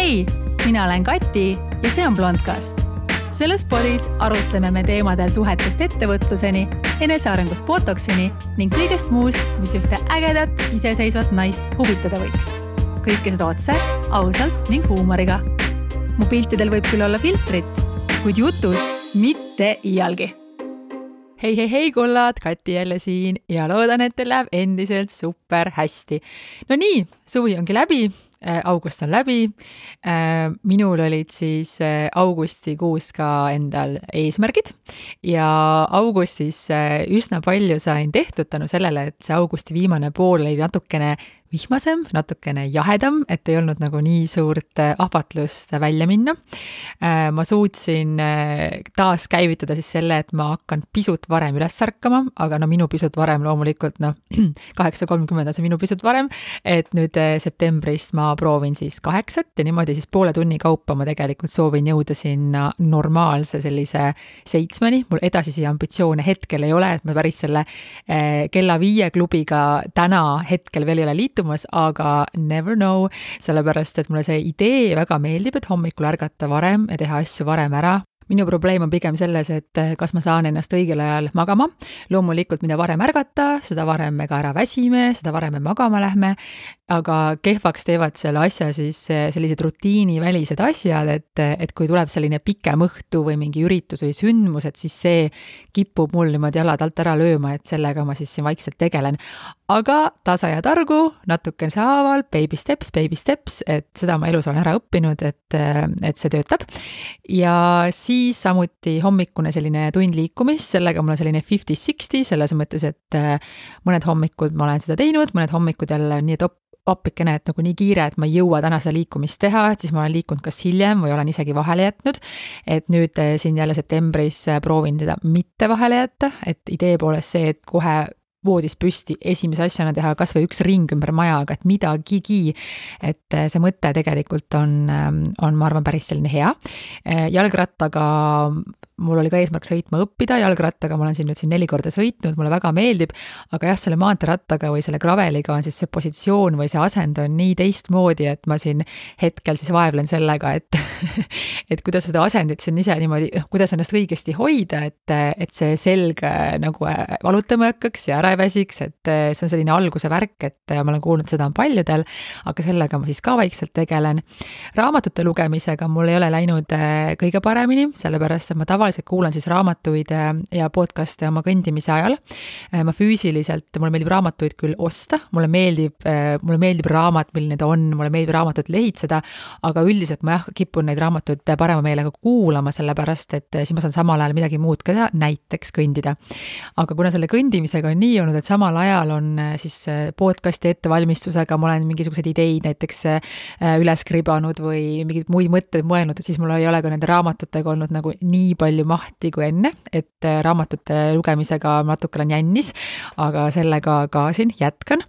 Hei, mina olen Kati ja see on Blondcast. Selles podis arutleme me teemadel suhetest ettevõtluseni, enesearengust botoksini ning kõigest muust, mis ühte ägedat, iseseisvat naist huvitada võiks. Kõike seda otse, ausalt ning huumoriga. Mu piltidel võib küll olla filtrit, kuid jutus mitte iialgi. Hei kullad, Kati jälle siin ja loodan, et teil läheb endiselt super hästi. No nii, suvi ongi läbi, august on läbi. Minul olid siis augustikuus ka endal eesmärgid ja augustis üsna palju sain tehtud tänu sellele, et see augusti viimane pool oli natukene vihmasem, natukene jahedam, et ei olnud nagu nii suurt ahvatlust välja minna. Ma suutsin taas käivitada siis selle, et ma hakkan pisut varem üles ärkama, aga minu pisut varem loomulikult 8:30 on see minu pisut varem, et nüüd septembrist ma proovin siis 8 ja niimoodi siis poole tunni kaupa ma tegelikult soovin jõuda sinna normaalse sellise 7-ni. Mul edasisi ambitsioone hetkel ei ole, et ma päris selle kella 5 klubiga täna hetkel veel ei ole liitunud, aga never know, sellepärast, et mulle see idee väga meeldib, et hommikul ärgata varem ja teha asju varem ära. Minu probleem on pigem selles, et kas ma saan ennast õigel ajal magama. Loomulikult, mida varem ärgata, seda varem me ka ära väsime, seda varem me magama lähme, aga kehvaks teevad selle asja siis sellised rutiinivälised asjad, et kui tuleb selline pikem õhtu või mingi üritus või sündmus, et siis see kipub mul niimoodi jalad alt ära lööma, et sellega ma siis vaikselt tegelen. Aga tasa ja targu, natukene saaval, baby steps, et seda ma elus olen ära õppinud, et see töötab. Ja siis samuti hommikune selline tund liikumist, sellega mul on selline 50-60, selles mõttes, et mõned hommikud ma olen seda teinud, mõned hommikud jälle nii, et appikene, et nagu nii kiire, et ma ei jõua täna seda liikumist teha, et siis ma olen liikunud kas hiljem või olen isegi vahele jätnud, et nüüd siin jälle septembris proovin seda mitte vahele jätta, et idee poolest see, et kohe voodis püsti esimese asjana teha kas või üks ring ümber maja, aga et midagigi, et see mõte tegelikult on, ma arvan, päris selline hea. Jalgrattaga mul oli ka eesmärk sõitma õppida, jalgrattaga ma olen siin 4 korda sõitnud, mulle väga meeldib, aga jah, selle maanteerattaga või selle graveliga on siis see positsioon või see asend on nii teistmoodi, et ma siin hetkel siis vaevlen sellega, et kuidas seda asendit siin ise niimoodi, kuidas ennast õigesti hoida, et see selg nagu valutama hakkaks ja ära ei väsiks, et see on selline alguse värk, et ma olen kuulnud, seda on paljudel, aga sellega ma siis ka vaikselt tegelen. Raamatute lugemisega mul ei ole läinud kõige paremini, sellepärast, et ma tavaliselt kuulan siis raamatuid ja podcaste oma kõndimise ajal. Ma füüsiliselt, mulle meeldib raamatuid küll osta, mulle meeldib raamat, milline ta on, mulle meeldib raamatut lehitseda, aga üldiselt ma kipun neid raamatuid parema meelega kuulama, sellepärast, et siis ma saan samal ajal midagi muud ka teha, näiteks kõndida. Aga kuna selle kõndimisega on nii olnud, et samal ajal on siis podcasti ettevalmistusega, ma olen mingisugused ideid näiteks üles kribanud või mingid muid mõtteid mõelnud, et siis mul ei ole ka nende raamatutega olnud nagu nii palju mahti kui enne, et raamatute lugemisega natuke olen jännis, aga sellega ka siin jätkan.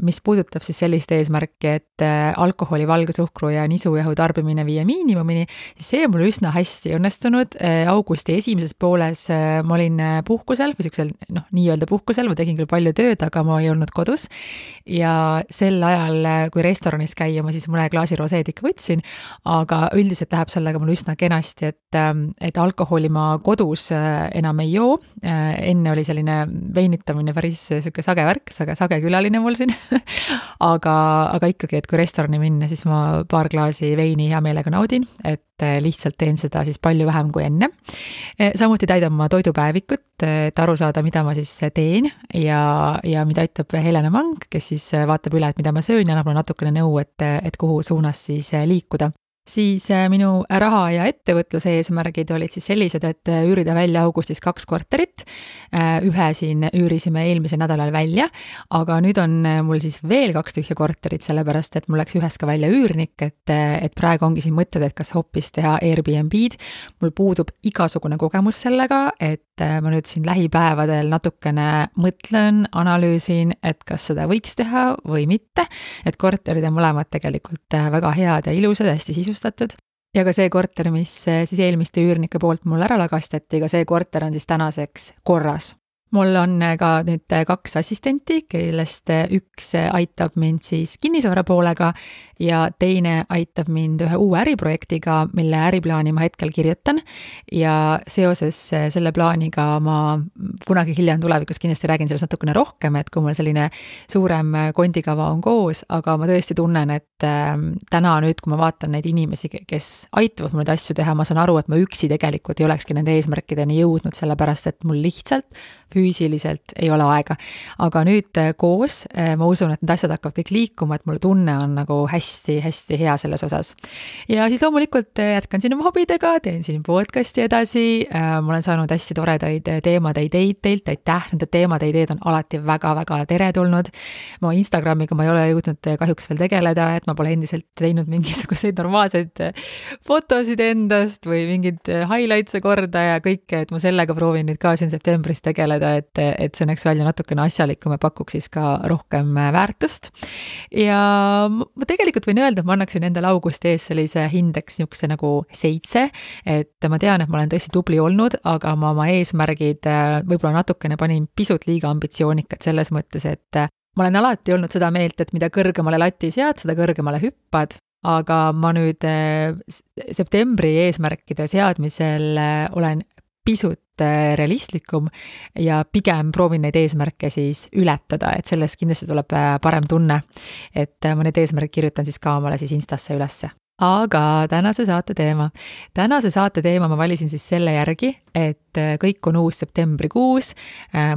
Mis puudutab siis sellist eesmärki, et alkoholi, valgesuhkru ja nisujahu tarbimine viia miinimumini, siis see mul üsna hästi õnnestunud. Augusti esimeses pooles ma olin puhkusel või siuksel, nii-öelda puhkusel, ma tegin küll palju tööd, aga ma ei olnud kodus ja sel ajal, kui restoranis käia, ma siis mõne klaasi roseed ikka võtsin, aga üldiselt läheb sellega mul üsna kenasti, et alkoholi ma kodus enam ei joo. Enne oli selline veinitamine päris siuke sage värk, sage külaline mul siin. aga ikkagi, et kui restorani minna, siis ma paar klaasi veini hea meelega naudin, et lihtsalt teen seda siis palju vähem kui enne. Samuti täidan ma toidupäevikut, et aru saada, mida ma siis teen ja mida ütleb Helena Mang, kes siis vaatab üle, et mida ma söön ja annab mulle natukene nõu, et kuhu suunas siis liikuda. Siis minu raha ja ettevõtluse eesmärgid olid siis sellised, et üürida välja augustis 2 korterit. Ühe siin üürisime eelmisel nädalal välja, aga nüüd on mul siis veel 2 tühja korterit, sellepärast, et mul läks ühes ka välja üürnik, et praegu ongi siin mõtted, et kas hoopis teha Airbnb-d. Mul puudub igasugune kogemus sellega, et ma nüüd siin lähipäevadel natukene mõtlen, analüüsin, et kas seda võiks teha või mitte, et korterid on mõlemad tegelikult väga head ja ilusad, hästi sisustatud. Ja ka see korter, mis siis eelmiste üürnike poolt mul ära lagastati, ka see korter on siis tänaseks korras. Mul on ka nüüd 2 assistenti, kellest üks aitab mind siis kinnisvara poolega ja teine aitab mind ühe uue äriprojektiga, mille äriplaani ma hetkel kirjutan ja seoses selle plaaniga ma kunagi hiljem tulevikus kindlasti räägin sellest natukene rohkem, et kui mul selline suurem kondikava on koos, aga ma tõesti tunnen, et täna nüüd, kui ma vaatan neid inimesi, kes aitavad mul neid asju teha, ma saan aru, et ma üksi tegelikult ei olekski nende eesmärkideni jõudnud, sellepärast et mul lihtsalt füüsiliselt ei ole aega. Aga nüüd koos ma usun, et need asjad hakkavad kõik liikuma, et mul tunne on nagu hästi-hästi hea selles osas. Ja siis loomulikult jätkan siin oma hobidega, teen siin podcasti edasi, ma olen saanud hästi toredaid teemade ideid teilt, aitäh, nende teemade ideed on alati väga-väga teretulnud. Ma Instagramiga ma ei ole jõudnud kahjuks veel tegeleda, et ma pole endiselt teinud mingisuguseid normaalseid fotosid endast või mingid highlights'e korda ja kõike, et ma sellega proovin nüüd ka siin septembris tegeleda, et see näeks välja natukene asjalikum ja pakuks siis ka rohkem väärtust. Ja ma tegelikult võin öelda, et ma annaksin endale augusti ees sellise hindeks niisuguse nagu 7, et ma tean, et ma olen tõesti tubli olnud, aga ma oma eesmärgid võib-olla natukene panin pisut liiga ambitsioonikad selles mõttes, et ma olen alati olnud seda meelt, et mida kõrgemale lati sead, seda kõrgemale hüppad, aga ma nüüd septembri eesmärkide seadmisel olen pisut realistlikum ja pigem proovin neid eesmärke siis ületada, et sellest kindlasti tuleb parem tunne, et ma need eesmärgid kirjutan siis ka omale siis Instasse ülesse. Aga tänase saate teema ma valisin siis selle järgi, et kõik on uus septembrikuus,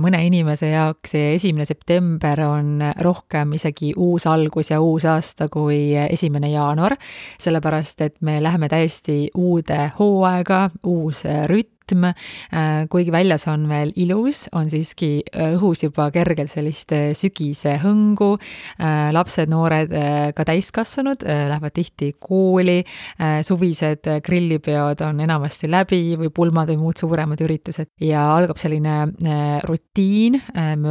mõne inimese jaoks 1. september on rohkem isegi uus algus ja uus aasta kui 1. jaanuar, sellepärast et me läheme täiesti uude hooaega, uus rütm, kuigi väljas on veel ilus, on siiski õhus juba kergelt sellist sügise hõngu, lapsed, noored, ka täiskasvanud lähevad tihti kooli, suvised grillipeod on enamasti läbi või pulmad või muud suuremad üritused ja algab selline rutiin,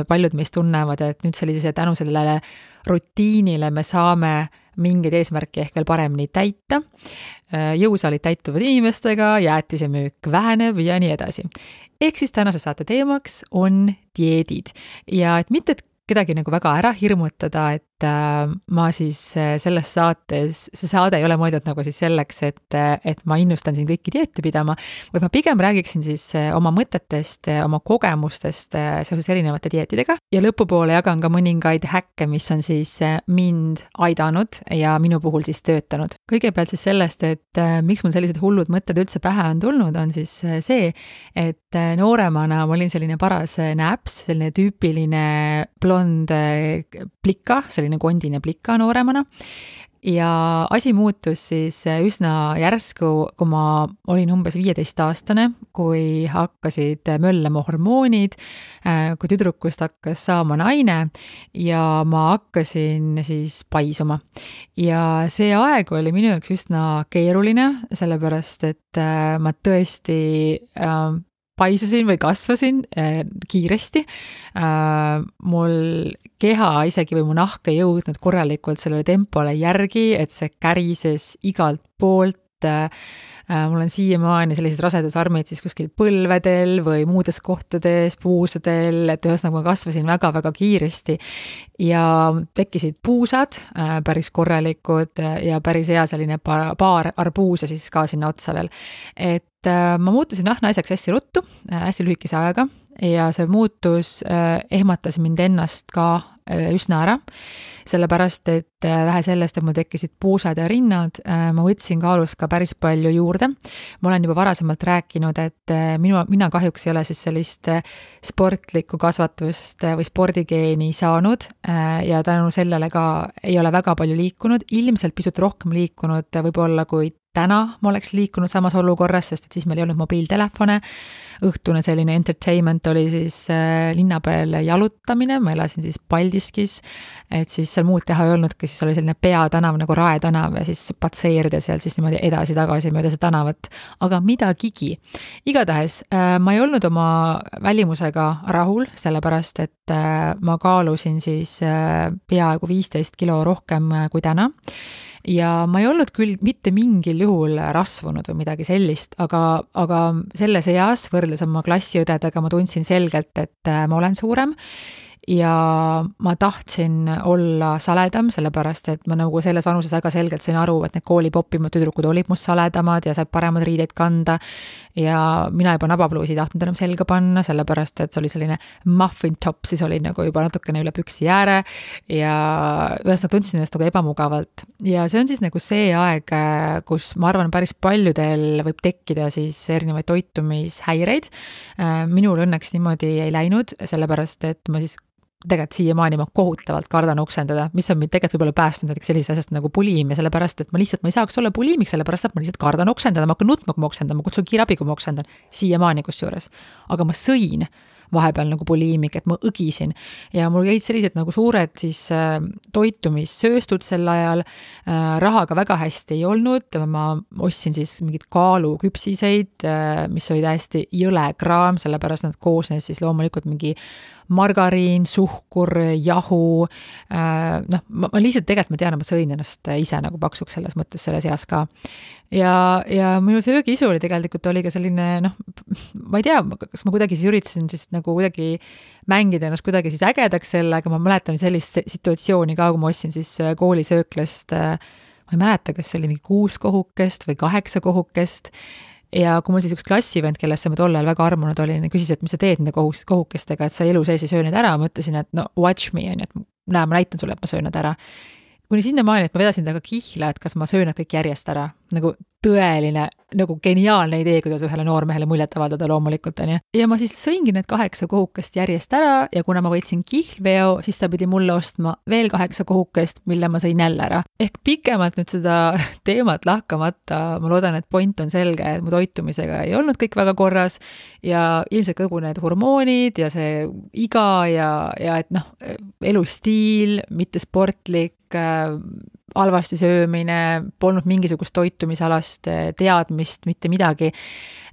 paljud meist tunnevad, et nüüd tänu sellele rutiinile me saame mingeid eesmärke ehk veel paremini täita, jõusaalid täituvad inimestega, jäätisemüük väheneb ja nii edasi. Ehk siis tänase saate teemaks on dieedid ja et mitte kedagi nagu väga ära hirmutada, et ma siis selles saates, see saade ei ole mõeldud nagu siis selleks, et ma innustan siin kõiki dieete pidama, või ma pigem räägiksin siis oma mõtetest, oma kogemustest seoses erinevate dieetidega ja lõpupoole jagan ka mõningaid häkke, mis on siis mind aidanud ja minu puhul siis töötanud. Kõigepealt siis sellest, et miks mul sellised hullud mõtted üldse pähe on tulnud, on siis see, et nooremana ma olin selline paras näps, selline tüüpiline blond plika, selline kondine plika nooremana ja asi muutus siis üsna järsku, kui ma olin umbes 15-aastane, kui hakkasid möllema hormoonid, kui tüdrukust hakkas saama naine ja ma hakkasin siis paisuma. Ja see aeg oli minu jaoks üsna keeruline, sellepärast et ma tõesti paisusin või kasvasin kiiresti. Mul keha isegi või mu nahk ei jõudnud korralikult sellele tempole järgi, et see kärises igalt poolt. Mul on siiamaani sellised rasedusarmid siis kuskil põlvedel või muudes kohtades, puusadel, et ühesõnaga ma kasvasin väga-väga kiiresti ja tekkisid puusad päris korralikud ja päris hea selline paar arbuuse siis ka sinna otsa veel. Et ma muutusin naiseks hästi ruttu, hästi lühikese ajaga ja see muutus ehmatas mind ennast ka üsna ära, sellepärast, et vähe sellest, et mul tekkisid puusad ja rinnad, ma võtsin kaalus ka päris palju juurde. Ma olen juba varasemalt rääkinud, et mina kahjuks ei ole siis sellist sportlikku kasvatust või spordigeeni saanud ja tänu sellele ka ei ole väga palju liikunud, ilmselt pisut rohkem liikunud võib-olla kui täna ma oleks liikunud samas olukorras, sest et siis meil ei olnud mobiiltelefone. Õhtune selline entertainment oli siis linna peal jalutamine, ma elasin siis Paldiskis, et siis seal muud teha ei olnudki, siis oli selline peatanav nagu Rae tänav ja siis patseerida seal siis niimoodi edasi-tagasi mööda see tänavat, aga midagigi. Igatahes ma ei olnud oma välimusega rahul, sellepärast et ma kaalusin siis peaaegu 15 kilo rohkem kui täna. Ja ma ei olnud küll mitte mingil juhul rasvunud või midagi sellist, aga selles eas võrreldes oma klassiõdedega ma tundsin selgelt, et ma olen suurem ja ma tahtsin olla saledam, sellepärast et ma nagu selles vanuses väga selgelt sain aru, et need kooli popimad tüdrukud olid must saledamad ja said paremad riideid kanda ja mina juba nabapluusi ei tahtnud enam selga panna, sellepärast et see oli selline muffin top, siis oli nagu juba natukene üle püksi ääre ja ühesõnaga tundsin ennast nagu ebamugavalt. Ja see on siis nagu see aeg, kus ma arvan, päris paljudel võib tekkida siis erinevaid toitumishäireid. Minul õnneks niimoodi ei läinud, sellepärast et ma siis tegelikult siiamaani ma kohutavalt kardan oksendada, mis on mind tegelikult võib-olla päästnud näiteks sellisest asjast nagu bulimia, sellepärast et ma ei saaks olla bulimik, sellepärast et ma lihtsalt kardan oksendada, ma hakkan nutma, kui ma oksendan, ma kutsun kiirabi, kui ma oksendan, siiamaani kusjuures. Aga ma sõin vahepeal nagu bulimik, et ma õgisin ja mul jäid sellised nagu suured siis toitumissööstud sel ajal, rahaga väga hästi ei olnud, ma ostsin siis mingid kaaluküpsiseid, mis oli täiesti jõle kraam, sellepärast nad koosnes siis loomulikult mingi margariin, suhkur, jahu, ma lihtsalt tegelikult ma tean, ma sõin ennast ise nagu paksuks selles mõttes selles eas ka. Ja minu söögiisu oli tegelikult oli ka selline, ma ei tea, kas ma kuidagi siis üritasin siis nagu kuidagi mängida ennast kuidagi siis ägedaks selle, aga ma mäletan sellist situatsiooni ka, kui ma ostsin siis koolisööklast, ma ei mäleta, kas see oli mingi 6 kohukest või 8 kohukest, ja kui mul siis üks klassivend, kellesse ma tol ajal väga armunud olin, küsis, et mis sa teed nende kohukestega, et sa elu sees ei söö need ära, ma ütlesin, et watch me, et näe, ma näitan sulle, et ma söön need ära. Kuni sinna maani, et ma vedasin taga kihla, et kas ma söön nad kõik järjest ära, nagu tõeline, nagu geniaalne idee, kuidas ühele noormehele muljet avaldada loomulikult, on ju. Ja ma siis sõingi need 8 kohukest järjest ära ja kuna ma võitsin kihlveo, siis ta pidi mulle ostma veel 8 kohukest, mille ma sõin jälle ära. Ehk pikemalt nüüd seda teemat lahkamata, ma loodan, et point on selge, et mu toitumisega ei olnud kõik väga korras ja ilmselt kogu need hormoonid ja see iga ja et elustiil, mitte sportlik, halvasti söömine, polnud mingisugust toitumisalast teadmist, mitte midagi,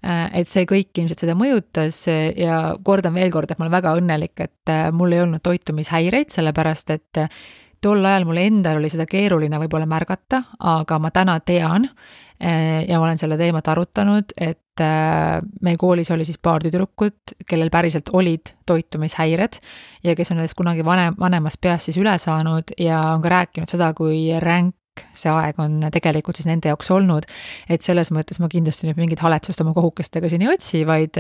et see kõik ilmselt seda mõjutas ja kordan veel kord, et ma olen väga õnnelik, et mul ei olnud toitumishäireid, sellepärast et tol ajal mul endal oli seda keeruline võib-olla märgata, aga ma täna tean ja ma olen selle teemat arutanud, et meie koolis oli siis paar tüdrukut, kellel päriselt olid toitumishäired ja kes on nendest kunagi vanemas peas siis üle saanud ja on ka rääkinud seda, kui ränk see aeg on tegelikult siis nende jaoks olnud, et selles mõttes ma kindlasti nüüd mingit haletsust oma kohukestega siin ei otsi, vaid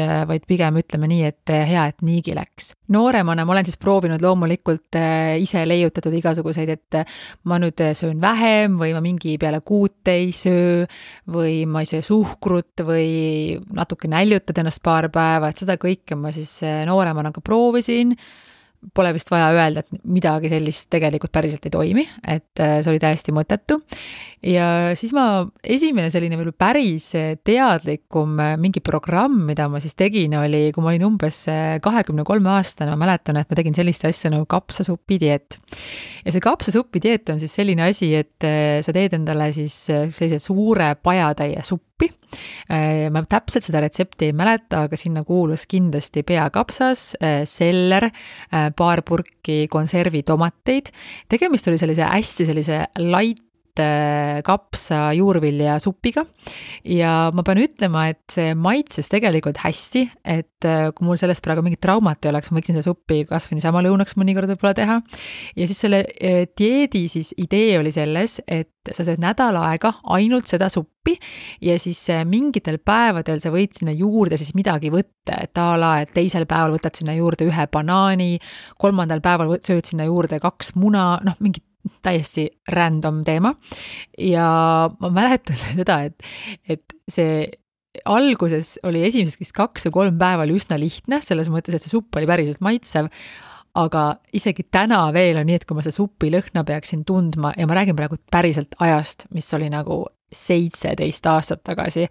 pigem ütleme nii, et hea, et niigi läks. Nooremana ma olen siis proovinud loomulikult ise leiutatud igasuguseid, et ma nüüd söön vähem või ma mingi peale 6 ei söö või ma ei söö suhkrut või natuke näljutad ennast paar päeva, et seda kõike ma siis nooremana ka proovisin. Pole vist vaja öelda, et midagi sellist tegelikult päriselt ei toimi, et see oli täiesti mõttetu. Ja siis esimene selline veel päris teadlikum mingi programm, mida ma siis tegin, oli, kui ma olin umbes 23 aastane, ma mäletan, et ma tegin sellist asja nagu kapsasupi dieet. Ja see kapsasupi dieet on siis selline asi, et sa teed endale siis sellise suure pajatäie suppi. Ma täpselt seda retsepti ei mäleta, aga sinna kuulus kindlasti peakapsas, seller, paar purki konservitomateid. Tegemist oli hästi sellise light kapsa juurvilja supiga ja ma pean ütlema, et see maitses tegelikult hästi, et kui mul sellest praegu mingit traumat ei oleks, ma võiksin seda suppi kasvõi niisama lõunaks mõnikord võib-olla teha. Ja siis selle dieedi siis idee oli selles, et sa sööd nädal aega ainult seda suppi ja siis mingitel päevadel sa võid sinna juurde siis midagi võtta, et et teisel päeval võtad sinna juurde 1 banaani, 3. päeval sööd sinna juurde 2 muna, mingit täiesti random teema ja ma mäletan seda, et see alguses oli esimeseks vist 2 või 3 päeva oli üsna lihtne, selles mõttes, et see supp oli päriselt maitsev, aga isegi täna veel on nii, et kui ma seda supi lõhna peaksin tundma ja ma räägin praegu päriselt ajast, mis oli nagu 17 aastat tagasi,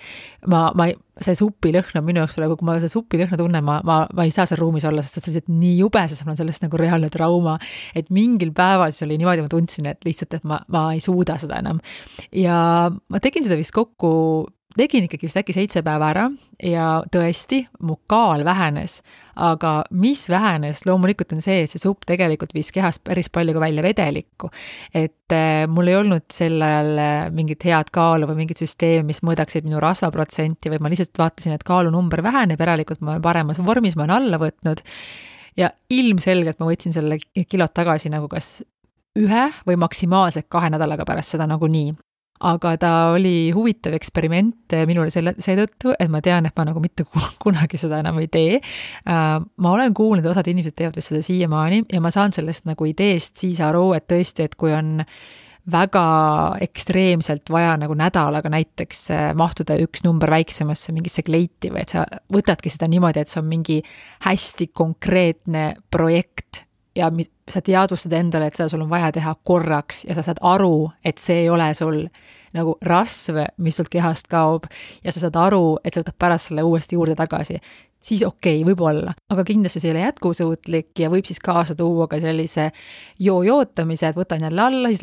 see supilõhn on minu jaoks praegu, kui ma seda supilõhna tunnen, ma ei saa seal ruumis olla, sest see on nii jube, sest mul on sellest nagu reaalne trauma, et mingil päeval siis oli niimoodi, ma tundsin, et lihtsalt, et ma ei suuda seda enam. Ja ma tegin seda vist tegin ikkagi vist äkki 7 päeva ära ja tõesti, mu kaal vähenes, aga mis vähenes loomulikult on see, et see supp tegelikult viis kehast päris palju ka välja vedelikku, et mul ei olnud sel ajal mingit head kaalu või mingit süsteemi, mis mõõdaksid minu rasvaprotsenti või ma lihtsalt vaatasin, et kaalunumber väheneb, järelikult ma olen paremas vormis, ma olen alla võtnud ja ilmselgelt ma võtsin selle kilod tagasi nagu kas 1 või maksimaalselt 2 nädalaga pärast seda nagu nii. Aga ta oli huvitav eksperiment minule seetõttu, et ma tean, et ma nagu mitte kunagi seda enam ei tee. Ma olen kuulnud, osad inimesed teevad seda siiamaani ja ma saan sellest nagu ideest siis aru, et tõesti, et kui on väga ekstreemselt vaja nagu nädalaga näiteks mahtuda 1 number väiksemasse mingisse kleiti või et sa võtadki seda niimoodi, et see on mingi hästi konkreetne projekt ja sa teadvustad endale, et seda sul on vaja teha korraks ja sa saad aru, et see ei ole sul nagu rasv, mis sult kehast kaob ja sa saad aru, et sa võtad pärast selle uuesti juurde tagasi, siis okei, võib-olla. Aga kindlasti see ei ole jätkusuutlik ja võib siis kaasa tuua ka sellise jootamise, et võtan jälle alla, siis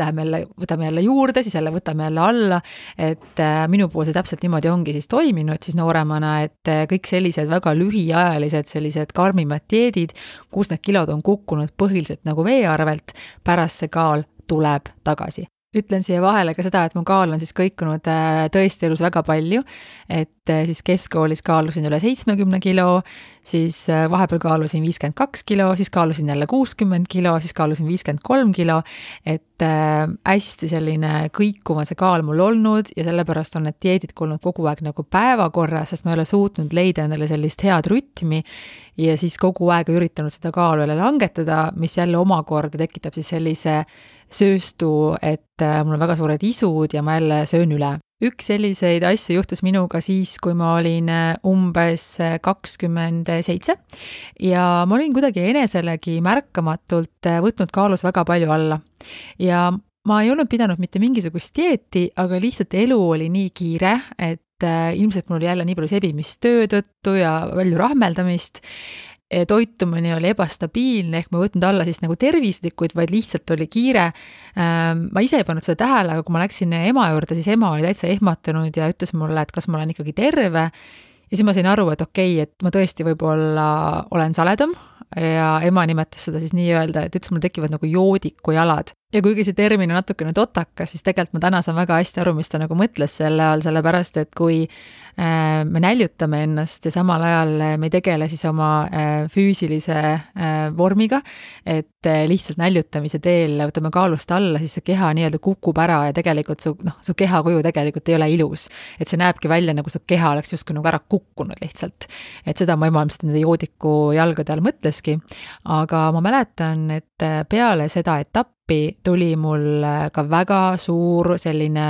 võtame jälle juurde, siis jälle võtame jälle alla, et minu puhul see täpselt niimoodi ongi siis toiminud siis nooremana, et kõik sellised väga lühiajalised, sellised karmimad dieedid, kus need kilod on kukkunud põhiliselt nagu vee arvelt, pärast see kaal tuleb tagasi. Ütlen siia vahele ka seda, et mu kaal on siis kõikunud tõesti elus väga palju, et siis keskkoolis kaalusin üle 70 kilo, siis vahepeal kaalusin 52 kilo, siis kaalusin jälle 60 kilo, siis kaalusin 53 kilo, et hästi selline kõikuva see kaal mul olnud ja sellepärast on need dieedid olnud kogu aeg nagu päevakorra, sest ma ei ole suutnud leida endale sellist head rütmi ja siis kogu aeg üritanud seda kaalu jälle langetada, mis jälle omakorda tekitab siis sellise sööstu, et mul on väga suured isud ja ma jälle söön üle. Üks selliseid asju juhtus minuga siis, kui ma olin umbes 27 ja ma olin kuidagi eneselegi märkamatult võtnud kaalus väga palju alla. Ja ma ei olnud pidanud mitte mingisugust dieeti, aga lihtsalt elu oli nii kiire, et ilmselt mul oli jälle nii palju sebimist töö tõttu ja palju rahmeldamist. Toitumine oli ebastabiilne, ehk ma võtnud alla siis nagu tervislikuid, vaid lihtsalt oli kiire. Ma ise ei pannud seda tähele, aga kui ma läksin ema juurde, siis ema oli täitsa ehmatanud ja ütles mulle, et kas ma olen ikkagi terve. Ja siis ma sain aru, et okei, et ma tõesti võib-olla olen saledam ja ema nimetas seda siis nii öelda, et ütles, mul tekivad nagu joodiku jalad. Ja kuigi see termin on natukene totakas, siis tegelikult ma täna saan väga hästi aru, mis ta nagu mõtles selle all, sellepärast, et kui me näljutame ennast ja samal ajal me ei tegele siis oma füüsilise vormiga, et lihtsalt näljutamise teel võtame kaalust alla, siis see keha nii-öelda kukub ära ja tegelikult su kehakuju tegelikult ei ole ilus. Et see näebki välja, nagu su keha oleks justkui nagu ära kukkunud lihtsalt. Et seda ma ema ilmselt nende joodiku jalgade all mõtleski. Aga ma mäletan, et peale seda etappi tuli mul ka väga suur selline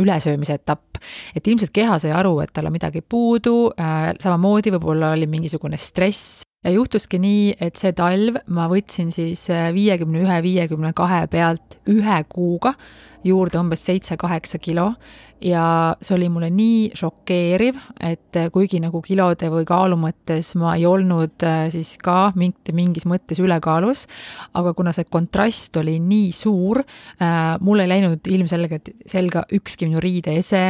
ülesöömise etapp. Et ilmselt keha sai aru, et tal on midagi puudu, samamoodi võib-olla oli mingisugune stress. Ja juhtuski nii, et see talv ma võtsin siis 51-52 pealt 1 kuuga juurde umbes 7-8 kilo ja see oli mulle nii šokeeriv, et kuigi nagu kilode või kaalu mõttes ma ei olnud siis ka mingis mõttes ülekaalus, aga kuna see kontrast oli nii suur, mul ei läinud ilmselgelt selga ükski minu riideese,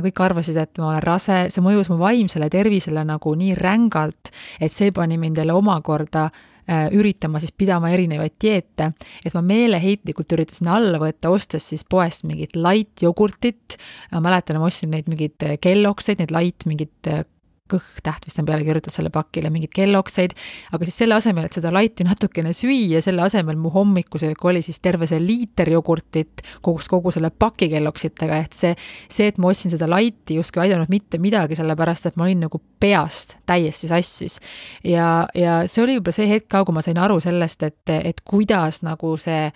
kõik arvasid, et ma olen rase, see mõjus mu vaimsele tervisele nagu nii rängalt, et see pani mind jälle omakorda üritama siis pidama erinevaid dieete, et ma meeleheitlikult üritasin alla võtta, ostes siis poest mingit light jogurtit, ma mäletan, ma ostsin neid mingid kellokseid, neid light mingid kõhtäht vist on peale kirjutatud selle pakile, mingid kellokseid, aga siis selle asemel, et seda lighti natukene süüa, selle asemel mu hommikusöök oli siis terve see liiter jogurtit kogu selle paki kelloksitega, et see, et ma ostsin seda lighti justkui aidanud mitte midagi, sellepärast, et ma olin nagu peast täiesti sassis. Ja see oli juba see hetk ka, kui ma sain aru sellest, et kuidas nagu see,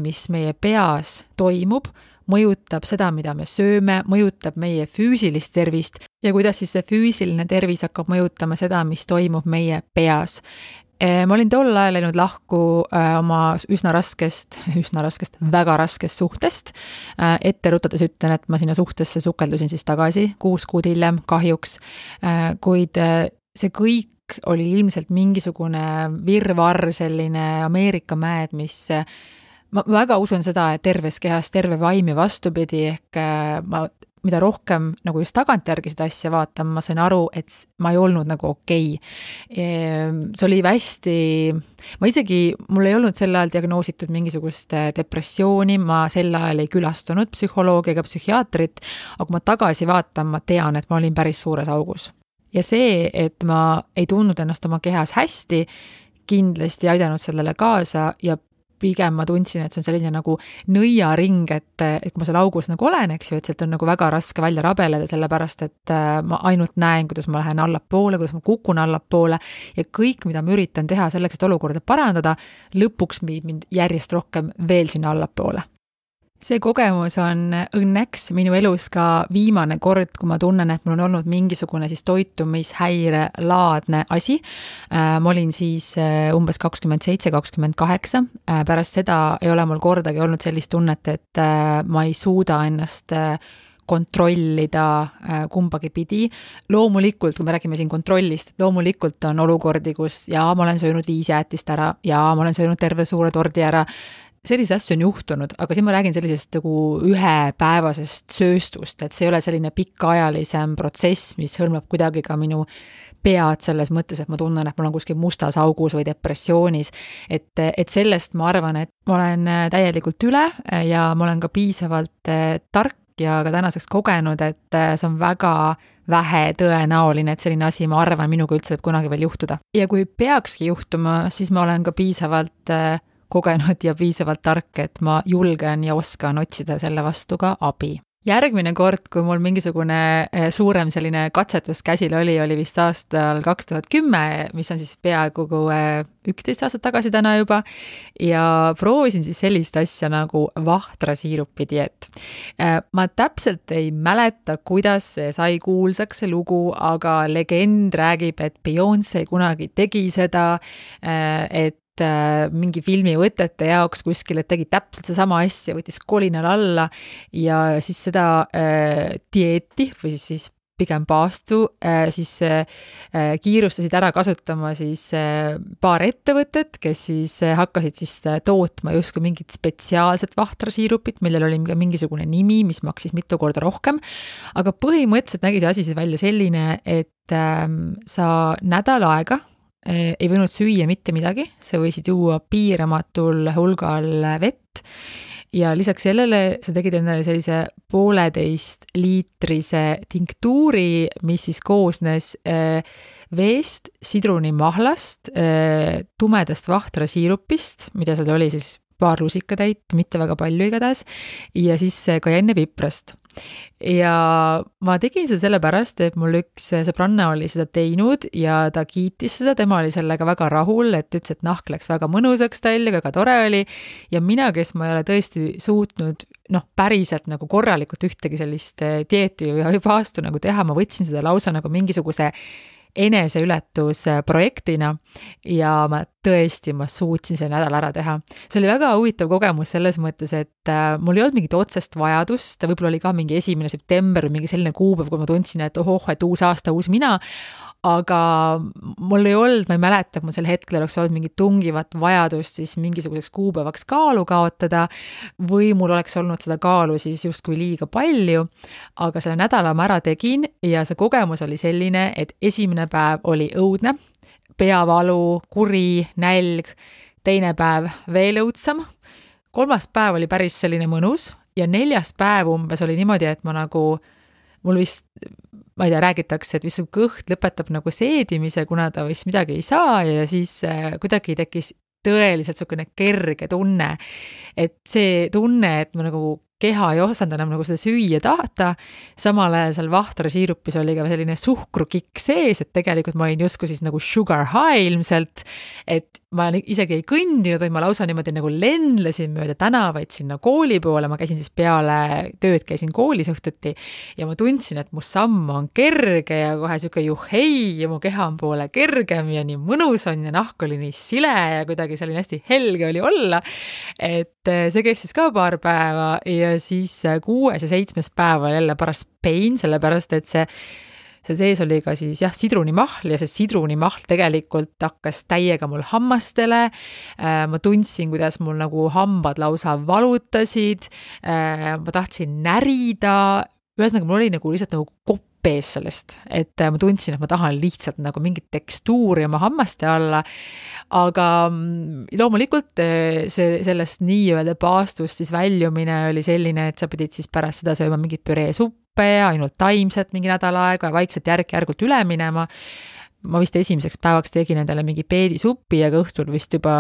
mis meie peas toimub, mõjutab seda, mida me sööme, mõjutab meie füüsilist tervist ja kuidas siis see füüsiline tervis hakkab mõjutama seda, mis toimub meie peas. Ma olin tol ajal läinud lahku oma üsna raskest, väga raskest suhtest. Ette rutades ütlen, et ma sinna suhtesse sukeldusin siis tagasi 6 kuud hiljem kahjuks, kuid see kõik oli ilmselt mingisugune virvarr, selline Ameerika mäed, mis ma väga usun seda, et terves kehas terve vaim ja vastupidi, ehk mida rohkem nagu just tagantjärgi seda asja vaatan, ma sain aru, et ma ei olnud nagu okei. See oli hästi, mul ei olnud sel ajal diagnoositud mingisugust depressiooni, ma sel ajal ei külastunud psühholoogi ega psühhiaatrit, aga kui ma tagasi vaatan, ma tean, et ma olin päris suures augus. ja see, et ma ei tundnud ennast oma kehas hästi, kindlasti aidanud sellele kaasa ja pigem ma tundsin, et see on selline nagu nõiaring, et kui ma seal augus nagu olen, eks ju, et sealt on nagu väga raske välja rabeleda, sellepärast et ma ainult näen, kuidas ma lähen allapoole, kuidas ma kukun allapoole ja kõik, mida ma üritan teha selleks, et olukorda parandada, lõpuks viib mind järjest rohkem veel sinna allapoole. See kogemus on õnneks minu elus ka viimane kord, kui ma tunnen, et mul on olnud mingisugune siis toitumishäire laadne asi. Ma olin siis umbes 27-28. Pärast seda ei ole mul kordagi olnud sellist tunnet, et ma ei suuda ennast kontrollida kumbagi pidi. Loomulikult, kui me räägime siin kontrollist, loomulikult on olukordi, kus ma olen söönud 5 jäätist ära ja ma olen söönud terve suure tordi ära. Sellise asju on juhtunud, aga siin ma räägin sellisest nagu ühepäevasest sööstust, et see ei ole selline pikaajalisem protsess, mis hõlmab kuidagi ka minu pead selles mõttes, et ma tunnen, et mul on kuskil mustas augus või depressioonis, et sellest ma arvan, et ma olen täielikult üle ja ma olen ka piisavalt tark ja ka tänaseks kogenud, et see on väga vähe tõenäoline, et selline asi, ma arvan, minuga üldse võib kunagi veel juhtuda. Ja kui peakski juhtuma, siis ma olen ka piisavalt kogenud ja piisavalt tark, et ma julgen ja oskan otsida selle vastu ka abi. Järgmine kord, kui mul mingisugune suurem selline katsetus käsil oli vist aastal 2010, mis on siis peaaegu 11 aastat tagasi täna juba, ja proovisin siis sellist asja nagu vahtrasiirupi dieet. Ma täpselt ei mäleta, kuidas see sai kuulsaks see lugu, aga legend räägib, et Beyoncé kunagi tegi seda, et mingi filmivõtete jaoks kuskil, et tegi täpselt see sama asja, võttis kolinal alla ja siis seda dieeti või siis pigem paastu, siis kiirustasid ära kasutama siis paar ettevõtet, kes siis hakkasid siis tootma justkui mingit spetsiaalset vahtrasiirupit, millel oli mingisugune nimi, mis maksis mitu korda rohkem, aga põhimõtteliselt nägi see asi siis välja selline, et sa nädal aega ei võinud süüa mitte midagi, sa võisid juua piiramatul hulgal vett ja lisaks sellele sa tegid endale sellise 1,5 liitrise tinktuuri, mis siis koosnes veest, sidrunimahlast, tumedast vahtrasiirupist, mida seal oli siis paar lusikatäit, mitte väga palju igatahes, ja siis kajennepiprast. Ja ma tegin seda sellepärast, et mul üks sõbranna oli seda teinud ja ta kiitis seda, tema oli sellega väga rahul, et ütles, et nahk läks väga mõnusaks tal ja väga tore oli ja mina, kes ma ei ole tõesti suutnud päriselt nagu korralikult ühtegi sellist dieeti või paastu nagu teha, ma võtsin seda lausa nagu mingisuguse eneseületusprojektina ja ma suutsin selle nädal ära teha. See oli väga huvitav kogemus selles mõttes, et mul ei olnud mingit otsest vajadust, võib-olla oli ka mingi 1. september või mingi selline kuupäev, kui ma tundsin, et et uus aasta, uus mina, aga mul ei olnud, ma ei mäleta, et mul sel hetkel oleks olnud mingit tungivat vajadust siis mingisuguseks kuupäevaks kaalu kaotada või mul oleks olnud seda kaalu siis justkui liiga palju, aga selle nädala ma ära tegin ja see kogemus oli selline, et esimene päev oli õudne, peavalu, kuri, nälg, teine päev veel õudsam, 3. päev oli päris selline mõnus ja 4. päev umbes oli niimoodi, et ma nagu, mul vist ma ei tea, räägitakse, et vist su kõht lõpetab nagu seedimise, kuna ta vist midagi ei saa ja siis kuidagi tekkis tõeliselt niisugune kerge tunne, et see tunne, et ma nagu keha ei osanud enam nagu seda süüa tahta, samal ajal seal vahtrasiirupis oli ka selline suhkrukikk sees, et tegelikult ma olin justkui siis nagu sugar high ilmselt, et ma isegi ei kõndinud, või ma lausa niimoodi nagu lendlesin mööda tänavaid sinna kooli poole, ma käisin siis peale tööd, käisin koolis õhtuti ja ma tundsin, et mu samm on kerge ja kohe siuke juhhei ja mu keha on poole kergem ja nii mõnus on ja nahk oli nii sile ja kuidagi see oli hästi helge oli olla, et see kestis ka paar päeva ja siis 6. ja 7. päeval jälle paras pain, sellepärast et see sees oli ka siis sidrunimahl ja see sidrunimahl tegelikult hakkas täiega mul hammastele, ma tundsin, kuidas mul nagu hambad lausa valutasid, ma tahtsin närida, ühesõnaga mul oli nagu lihtsalt nagu kopp pees sellest, et ma tundsin, et ma tahan lihtsalt nagu mingit tekstuuri oma hammaste alla, aga loomulikult sellest nii-öelda paastust siis väljumine oli selline, et sa pidid siis pärast seda sööma mingit püreesuppe ja ainult taimset mingi nädal aega ja vaikselt järk-järgult üle minema. Ma vist esimeseks päevaks tegin endale mingi peedisuppi, aga õhtul vist juba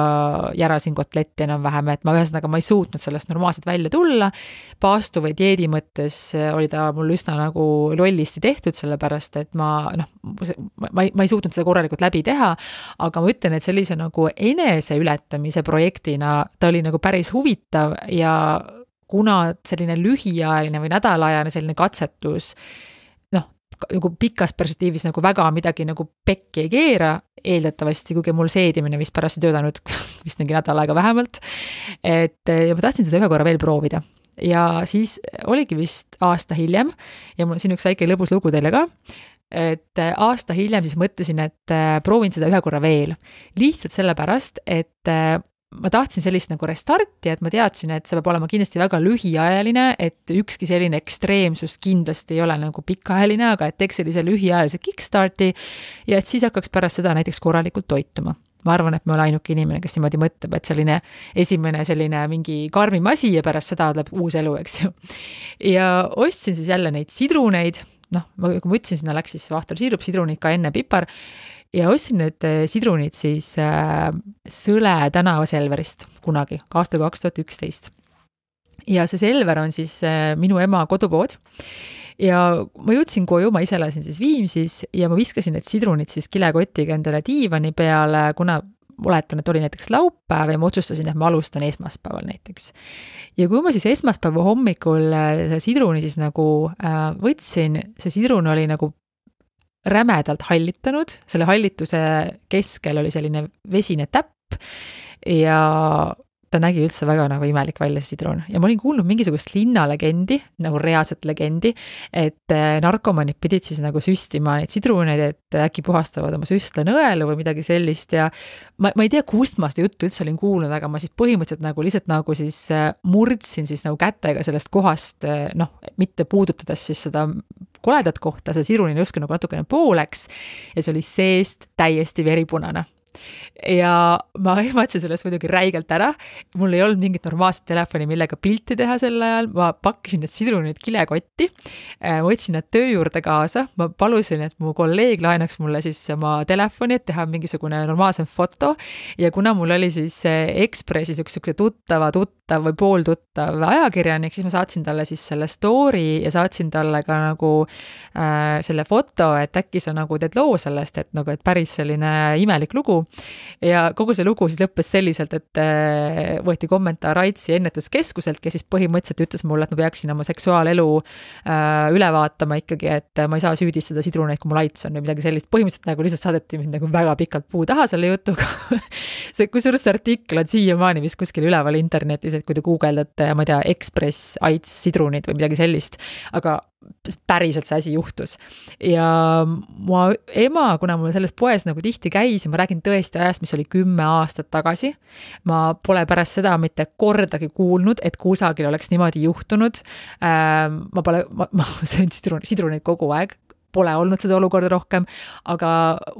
järasin kotletti enam-vähem, et ma ei suutnud sellest normaalselt välja tulla. Paastu või dieedi mõttes oli ta mul üsna nagu lollisti tehtud, sellepärast, et ma ei suutnud seda korralikult läbi teha, aga ma ütlen, et sellise nagu enese ületamise projektina ta oli nagu päris huvitav ja kuna selline lühiajaline või nädalajane selline katsetus nagu pikas perspektiivis nagu väga midagi nagu pekki ei keera, eeldatavasti, kuigi mul seedimine vist pärast ei töötanud vist mingi nädal aega vähemalt, ja ma tahtsin seda ühe korra veel proovida. Ja siis oligi vist aasta hiljem, ja mul on siin üks väike lõbus lugu teile ka, et aasta hiljem siis mõtlesin, et proovin seda ühe korra veel. Lihtsalt sellepärast, et ma tahtsin sellist nagu restarti, et ma teadsin, et see peab olema kindlasti väga lühiajaline, et ükski selline ekstreemsus kindlasti ei ole nagu pikaajaline, aga et teeks sellise lühiajalise kickstarti ja et siis hakkaks pärast seda näiteks korralikult toituma. Ma arvan, et me ole ainuke inimene, kes niimoodi mõtleb, et selline esimene selline mingi karmim asi ja pärast seda tuleb uus elu, eks ju. Ja ostsin siis jälle neid sidruneid, kui ma ütlesin, sinna läks siis vahtorsiirup, sidrunid ka enne pipar, ja ostsin need sidrunid siis Sõle tänava Selverist kunagi, aastal 2011. Ja see Selver on siis minu ema kodupood. Ja ma jõudsin koju, ma ise elasin siis Viimsis ja ma viskasin need sidrunid siis kilekotiga endale diivani peale, kuna oletan, et oli näiteks laupäev ja ma otsustasin, et ma alustan esmaspäeval näiteks. Ja kui ma siis esmaspäeva hommikul sidruni siis nagu võtsin, see sidrun oli nagu rämedalt hallitanud, selle hallituse keskel oli selline vesine täpp ja ta nägi üldse väga nagu imelik välja see sidrun. Ja ma olin kuulnud mingisugust linnalegendi, nagu reaalset legendi, et narkomanid pidid siis nagu süstima neid sidruneid, et äkki puhastavad oma süstlenõelu või midagi sellist ja ma ei tea, kust ma seda juttu üldse olin kuulnud, aga ma siis põhimõtteliselt nagu lihtsalt nagu siis murdsin siis nagu kätega sellest kohast, mitte puudutades siis seda koledat kohta, see sidrun oli justkui nagu natukene pooleks ja see oli seest täiesti veripunane. Ja ma ehmatasin sellest muidugi räigelt ära, mul ei olnud mingit normaalset telefoni, millega pilti teha sel ajal, ma pakkisin need sidrunid kilekotti, ma võtsin nad töö juurde kaasa, ma palusin, et mu kolleeg laenaks mulle siis oma telefoni, et teha mingisugune normaalsem foto ja kuna mul oli siis Ekspressis üks tuttava või pooltuttav ajakirjanik, siis ma saatsin talle siis selle story ja saatsin talle ka nagu selle foto, et äkki sa nagu teed loo sellest, et nagu, et päris selline imelik lugu. Ja kogu see lugu siis lõppes selliselt, et võeti kommentaar Aitsi ennetuskeskuselt, kes siis põhimõtteliselt ütles mulle, et ma peaksin oma seksuaalelu üle vaatama ikkagi, et ma ei saa süüdistada sidruneid, kui mul Aits on või midagi sellist. Põhimõtteliselt nagu lihtsalt saadeti mind nagu väga pikalt puu taha selle jutuga. Kusjuures see artikkel on siiamaani vist kuskil üleval internetis, et kui te guugeldate, ma ei tea, Ekspress, Aits, sidrunid või midagi sellist, aga päriselt see asi juhtus. Ja mu ema, kuna mul selles poes nagu tihti käis ja ma räägin tõesti ajast, mis oli 10 aastat tagasi, ma pole pärast seda mitte kordagi kuulnud, et kusagil oleks niimoodi juhtunud. Ma söön sidruneid kogu aeg, pole olnud seda olukorda rohkem, aga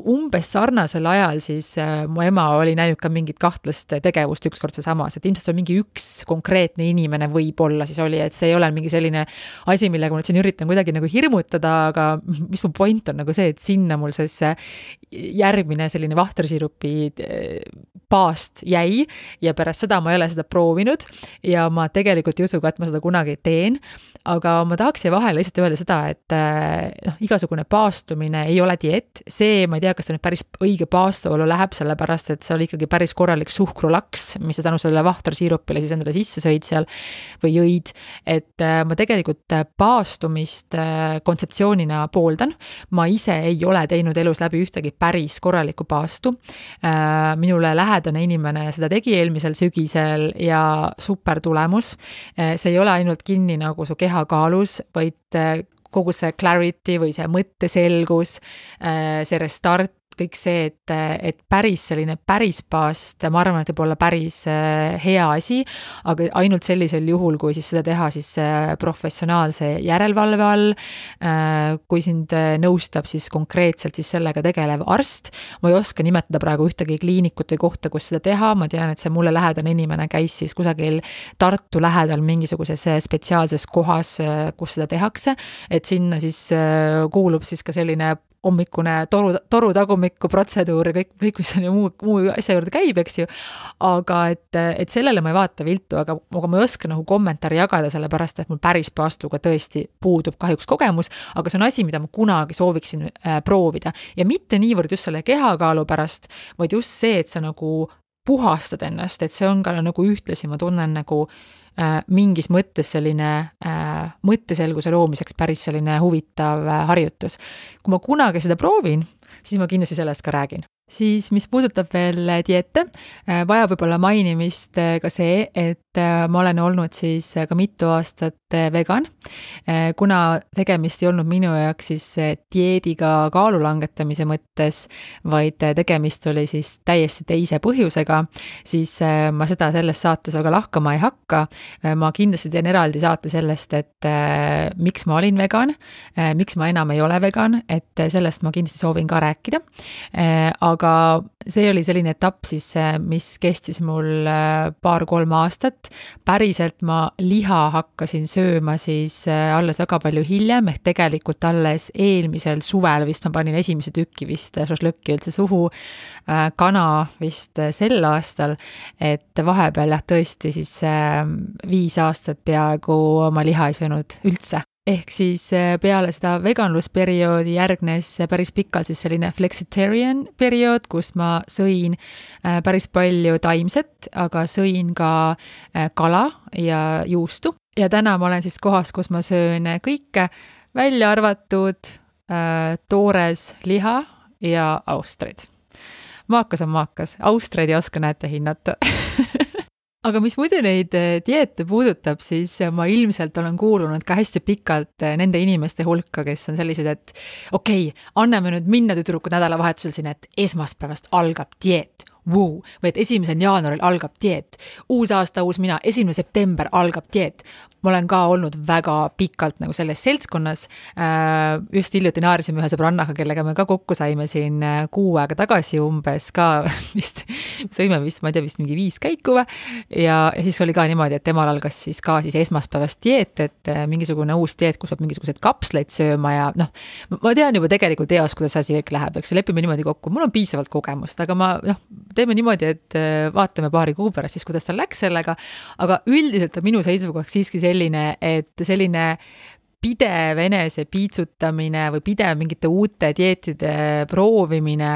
umbes sarnasel ajal siis mu ema oli näinud ka mingit kahtlast tegevust ükskord seesamas, et ilmselt on mingi üks konkreetne inimene võib-olla siis oli, et see ei ole mingi selline asi, millega ma nüüd siin üritan kuidagi nagu hirmutada, aga mis mu point on nagu see, et sinna mul see järgmine selline vahtrisirupi paast jäi ja pärast seda ma ei ole seda proovinud ja ma tegelikult ei usu ka, et ma seda kunagi teen, aga ma tahaks vahele lihtsalt öelda seda, et igasugune paastumine ei ole diet, see ma ei tea, kas ta nüüd päris õige paastuolu läheb, sellepärast et see oli ikkagi päris korralik suhkrulaks, mis sa tänu sellele vahtrisiirupile siis endale sisse sõid seal või jõid, et ma tegelikult paastumist kontseptsioonina pooldan, ma ise ei ole teinud elus läbi ühtegi päris korralikku paastu, minule lähedane inimene seda tegi eelmisel sügisel ja super tulemus, see ei ole ainult kinni nagu su kehakaalus, vaid kogu see clarity või see mõtteselgus, see restart kõik see, et päris selline päris paast, ma arvan, et võib olla päris hea asi, aga ainult sellisel juhul, kui siis seda teha siis professionaalse järelevalve all, kui sind nõustab siis konkreetselt siis sellega tegelev arst. Ma ei oska nimetada praegu ühtegi kliinikute kohta, kus seda teha, ma tean, et see mulle lähedane inimene käis siis kusagil Tartu lähedal mingisuguses spetsiaalses kohas, kus seda tehakse, et sinna siis kuulub siis ka selline hommikune toru tagumikku protseduur ja kõik, mis on ju muu asja juurde käib, eks ju. Aga et sellele ma ei vaata viltu, aga ma ei oska nagu kommentaari jagada, sellepärast, et mul päris paastuga tõesti puudub kahjuks kogemus, aga see on asi, mida ma kunagi sooviksin proovida. Ja mitte niivõrd just selle kehakaalu pärast, vaid just see, et sa nagu puhastad ennast, et see on ka nagu ühtlasi, ma tunnen nagu mingis mõttes selline mõtteselguse loomiseks päris selline huvitav harjutus. Kui ma kunagi seda proovin, siis ma kindlasti sellest ka räägin. Siis mis puudutab veel dieete, vajab võib-olla mainimist ka see, et ma olen olnud siis ka mitu aastat vegan, kuna tegemist ei olnud minu jaoks siis dieediga kaalu langetamise mõttes, vaid tegemist oli siis täiesti teise põhjusega, siis ma seda selles saates väga lahkama ei hakka. Ma kindlasti teen eraldi saate sellest, et miks ma olin vegan, miks ma enam ei ole vegan, et sellest ma kindlasti soovin ka rääkida. Aga see oli selline etapp siis, mis kestis mul 2-3 aastat. Päriselt ma liha hakkasin sööma siis alles väga palju hiljem, ehk tegelikult alles eelmisel suvel vist ma panin esimese tükki vist šašlõkki üldse suhu, kana vist sel aastal, et vahepeal tõesti siis 5 aastat peaaegu ma liha ei söönud üldse. Ehk siis peale seda veganlusperioodi järgnes päris pikalt siis selline flexitarian periood, kus ma sõin päris palju taimset, aga sõin ka kala ja juustu. Ja täna ma olen siis kohas, kus ma söön kõike, välja arvatud toores liha ja austrid. Maakas on maakas, austreid ei oska näete hinnata. Aga mis muidu neid dieete puudutab, siis ma ilmselt olen kuulunud ka hästi pikalt nende inimeste hulka, kes on sellised, et okei, anname nüüd minna tüdrukud nädalavahetusel sinna, et esmaspäevast algab dieet. Või et 1. jaanuaril algab dieet, uus aasta, uus mina, 1. september algab dieet. Ma olen ka olnud väga pikalt nagu selles seltskonnas, just hiljuti naarisime ühe sõbrannaga, kellega me ka kokku saime siin 6 aega tagasi umbes ka vist, sõime vist, ma ei tea, vist mingi 5 käiku ja siis oli ka niimoodi, et temal algas siis ka siis esmaspäevast dieet, et mingisugune uus dieet, kus peab mingisugused kapsleid sööma ja ma tean juba tegelikult eos, kuidas asi kõik läheb, eks lepime niimoodi kokku, mul on piisavalt kogemust, aga ma teeme niimoodi, et vaatame paari kuu pärast siis, kuidas tal läks sellega, aga üldiselt on minu seisukohaks siiski selline, et selline pidev enese piitsutamine või pidev mingite uute dieetide proovimine,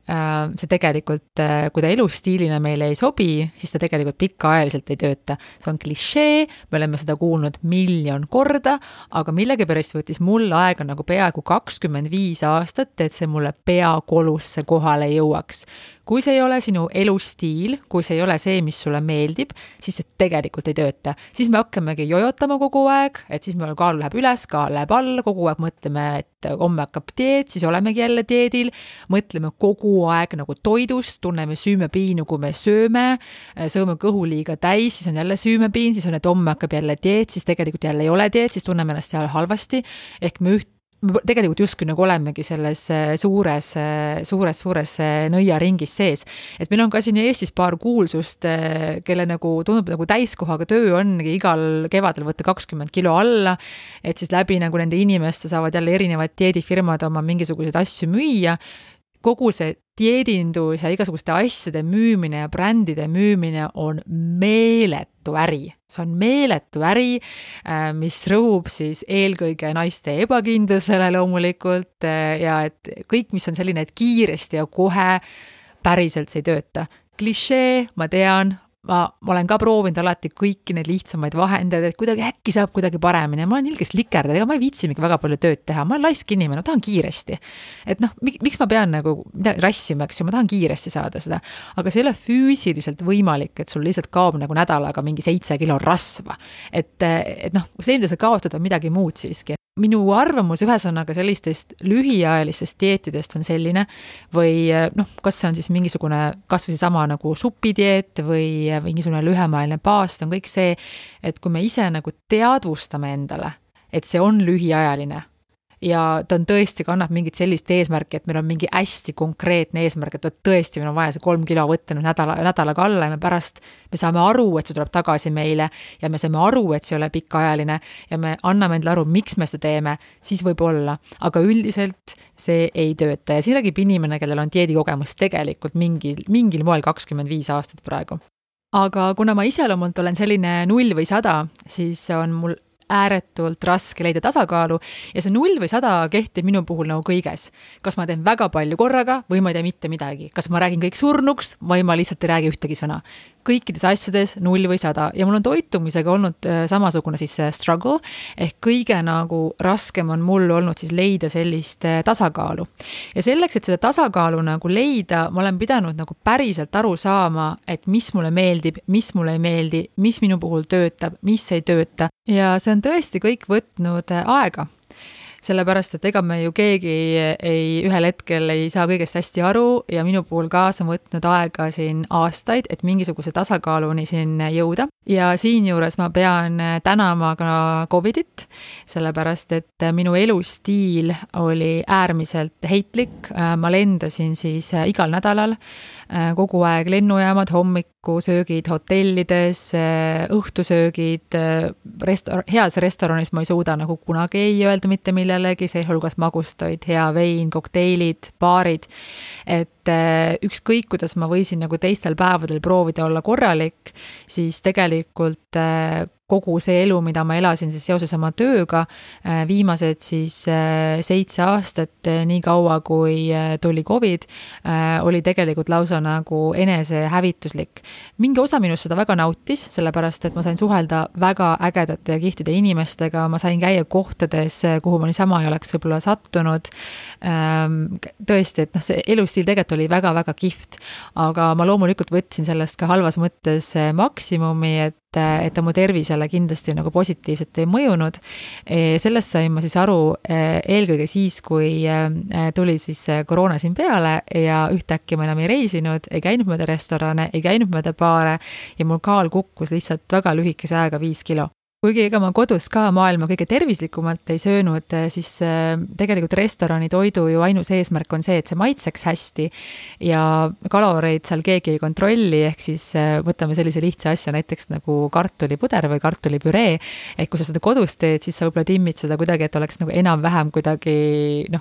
see tegelikult, kui ta elustiilina meile ei sobi, siis ta tegelikult pikaajaliselt ei tööta. See on klišee, me oleme seda kuulnud 1,000,000 korda, aga millegipärast võttis mul aega nagu peaaegu 25 aastat, et see mulle peakolusse kohale jõuaks. Kui see ei ole sinu elustiil, kui see ei ole see, mis sulle meeldib, siis see tegelikult ei tööta. Siis me hakkamegi jojotama kogu aeg, et siis meil kaal läheb üles, kaal läheb alla, kogu aeg mõtleme, et homme hakkab dieet, siis olemegi jälle dieedil, mõtleme kogu aeg nagu toidust, tunneme süümepiinu, kui me sööme kõhu liiga täis, siis on jälle süümepiin, siis on, et homme hakkab jälle dieet, siis tegelikult jälle ei ole dieet, siis tunneme ennast seal halvasti, ehk me tegelikult justkui nagu olemegi selles suures nõiaringis sees. Et meil on ka siin Eestis paar kuulsust, kelle nagu tundub nagu täiskohaga töö ongi igal kevadel võtta 20 kilo alla, et siis läbi nagu nende inimeste saavad jälle erinevad dieedifirmad oma mingisuguseid asju müüa. Kogu see dieedindus ja igasuguste asjade müümine ja brändide müümine on meeletu äri. See on meeletu äri, mis rõhub siis eelkõige naiste ebakindlusele loomulikult ja et kõik, mis on selline, et kiiresti ja kohe päriselt see ei tööta. Klišee, ma tean, ma olen ka proovinud alati kõiki neid lihtsamaid vahendeid, et kuidagi äkki saab kuidagi paremini. Ma olen ilgest likerdada, ega ma ei viitsimegi väga palju tööd teha. Ma olen laisk inimene, ma tahan kiiresti. Et miks ma pean nagu rassima, eks ju, ma tahan kiiresti saada seda. Aga see ei ole füüsiliselt võimalik, et sul lihtsalt kaob nagu nädalaga mingi 7 kilo rasva. Et see, mida sa kaotad, on midagi muud siiski. minu arvamus ühesõnaga sellistest lühiajalistest dieetidest on selline või kas see on siis mingisugune kas või sama nagu supidieet või mingisugune lühemaajaline paast, on kõik see, et kui me ise nagu teadvustame endale, et see on lühiajaline ja ta on tõesti, kannab mingit sellist eesmärki, et meil on mingi hästi konkreetne eesmärk, et tõesti meil on vaja see 3 kilo võtta nüüd nädalaga alla ja me saame aru, et see tuleb tagasi meile ja me saame aru, et see ei ole pikaajaline ja me anname endale aru, miks me seda teeme, siis võib olla, aga üldiselt see ei tööta ja siin räägib inimene, kellel on dieedikogemus tegelikult mingil moel 25 aastat praegu. Aga kuna ma iseloomult olen selline 0 või 100, siis on mul ääretult raske leida tasakaalu ja see 0 või 100 kehtib minu puhul nagu kõiges. Kas ma teen väga palju korraga või ma ei tee mitte midagi. Kas ma räägin kõik surnuks või ma lihtsalt ei räägi ühtegi sõna. Kõikides asjades 0 või 100 ja mul on toitumisega olnud samasugune siis struggle ehk kõige nagu raskem on mul olnud siis leida sellist tasakaalu. Ja selleks, et seda tasakaalu nagu leida, ma olen pidanud nagu päriselt aru saama, et mis mulle meeldib, mis mulle ei meeldi, mis minu puhul töötab, mis ei tööta ja see on tõesti kõik võtnud aega. Sellepärast, et ega me ju keegi ühel hetkel ei saa kõigest hästi aru ja minu puhul kaasa on võtnud aega siin aastaid, et mingisuguse tasakaaluni siin jõuda. Ja siinjuures ma pean tänama ka COVIDit, sellepärast, et minu elustiil oli äärmiselt heitlik. Ma lendasin siis igal nädalal, kogu aeg lennujaamad, hommikusöögid hotellides, õhtusöögid, heas restoranis ma ei suuda nagu kunagi ei öelda mitte millelegi, seehulgas magustoid, hea vein, kokteilid, baarid, et ükskõik, kuidas ma võisin nagu teistel päevadel proovida olla korralik, siis tegelikult kogu see elu, mida ma elasin siis seoses oma tööga, viimased siis 7 aastat, nii kaua kui tuli COVID, oli tegelikult lausa nagu enesehävituslik. Mingi osa minust seda väga nautis, sellepärast, et ma sain suhelda väga ägedate ja kihtide inimestega, ma sain käia kohtades, kuhu ma niisama ei oleks võib-olla sattunud. Tõesti, et see elustiil tegelikult oli väga-väga kihvt, aga ma loomulikult võtsin sellest ka halvas mõttes maksimumi, et ta mu tervisele kindlasti nagu positiivselt ei mõjunud. Sellest sain ma siis aru eelkõige siis, kui tuli siis koroona siin peale ja ühtäkki ma enam ei reisinud, ei käinud mööda restorane, ei käinud mööda baare ja mul kaal kukkus lihtsalt väga lühikese ajaga 5 kilo. Kuigi ega ma kodus ka maailma kõige tervislikumalt ei söönud, siis tegelikult restorani toidu ju ainus eesmärk on see, et see maitseks hästi ja kaloreid seal keegi ei kontrolli, ehk siis võtame sellise lihtsa asja näiteks nagu kartulipuder või kartulipüree, et kui sa seda kodus teed, siis sa võib-olla timmid seda kuidagi, et oleks nagu enam-vähem kuidagi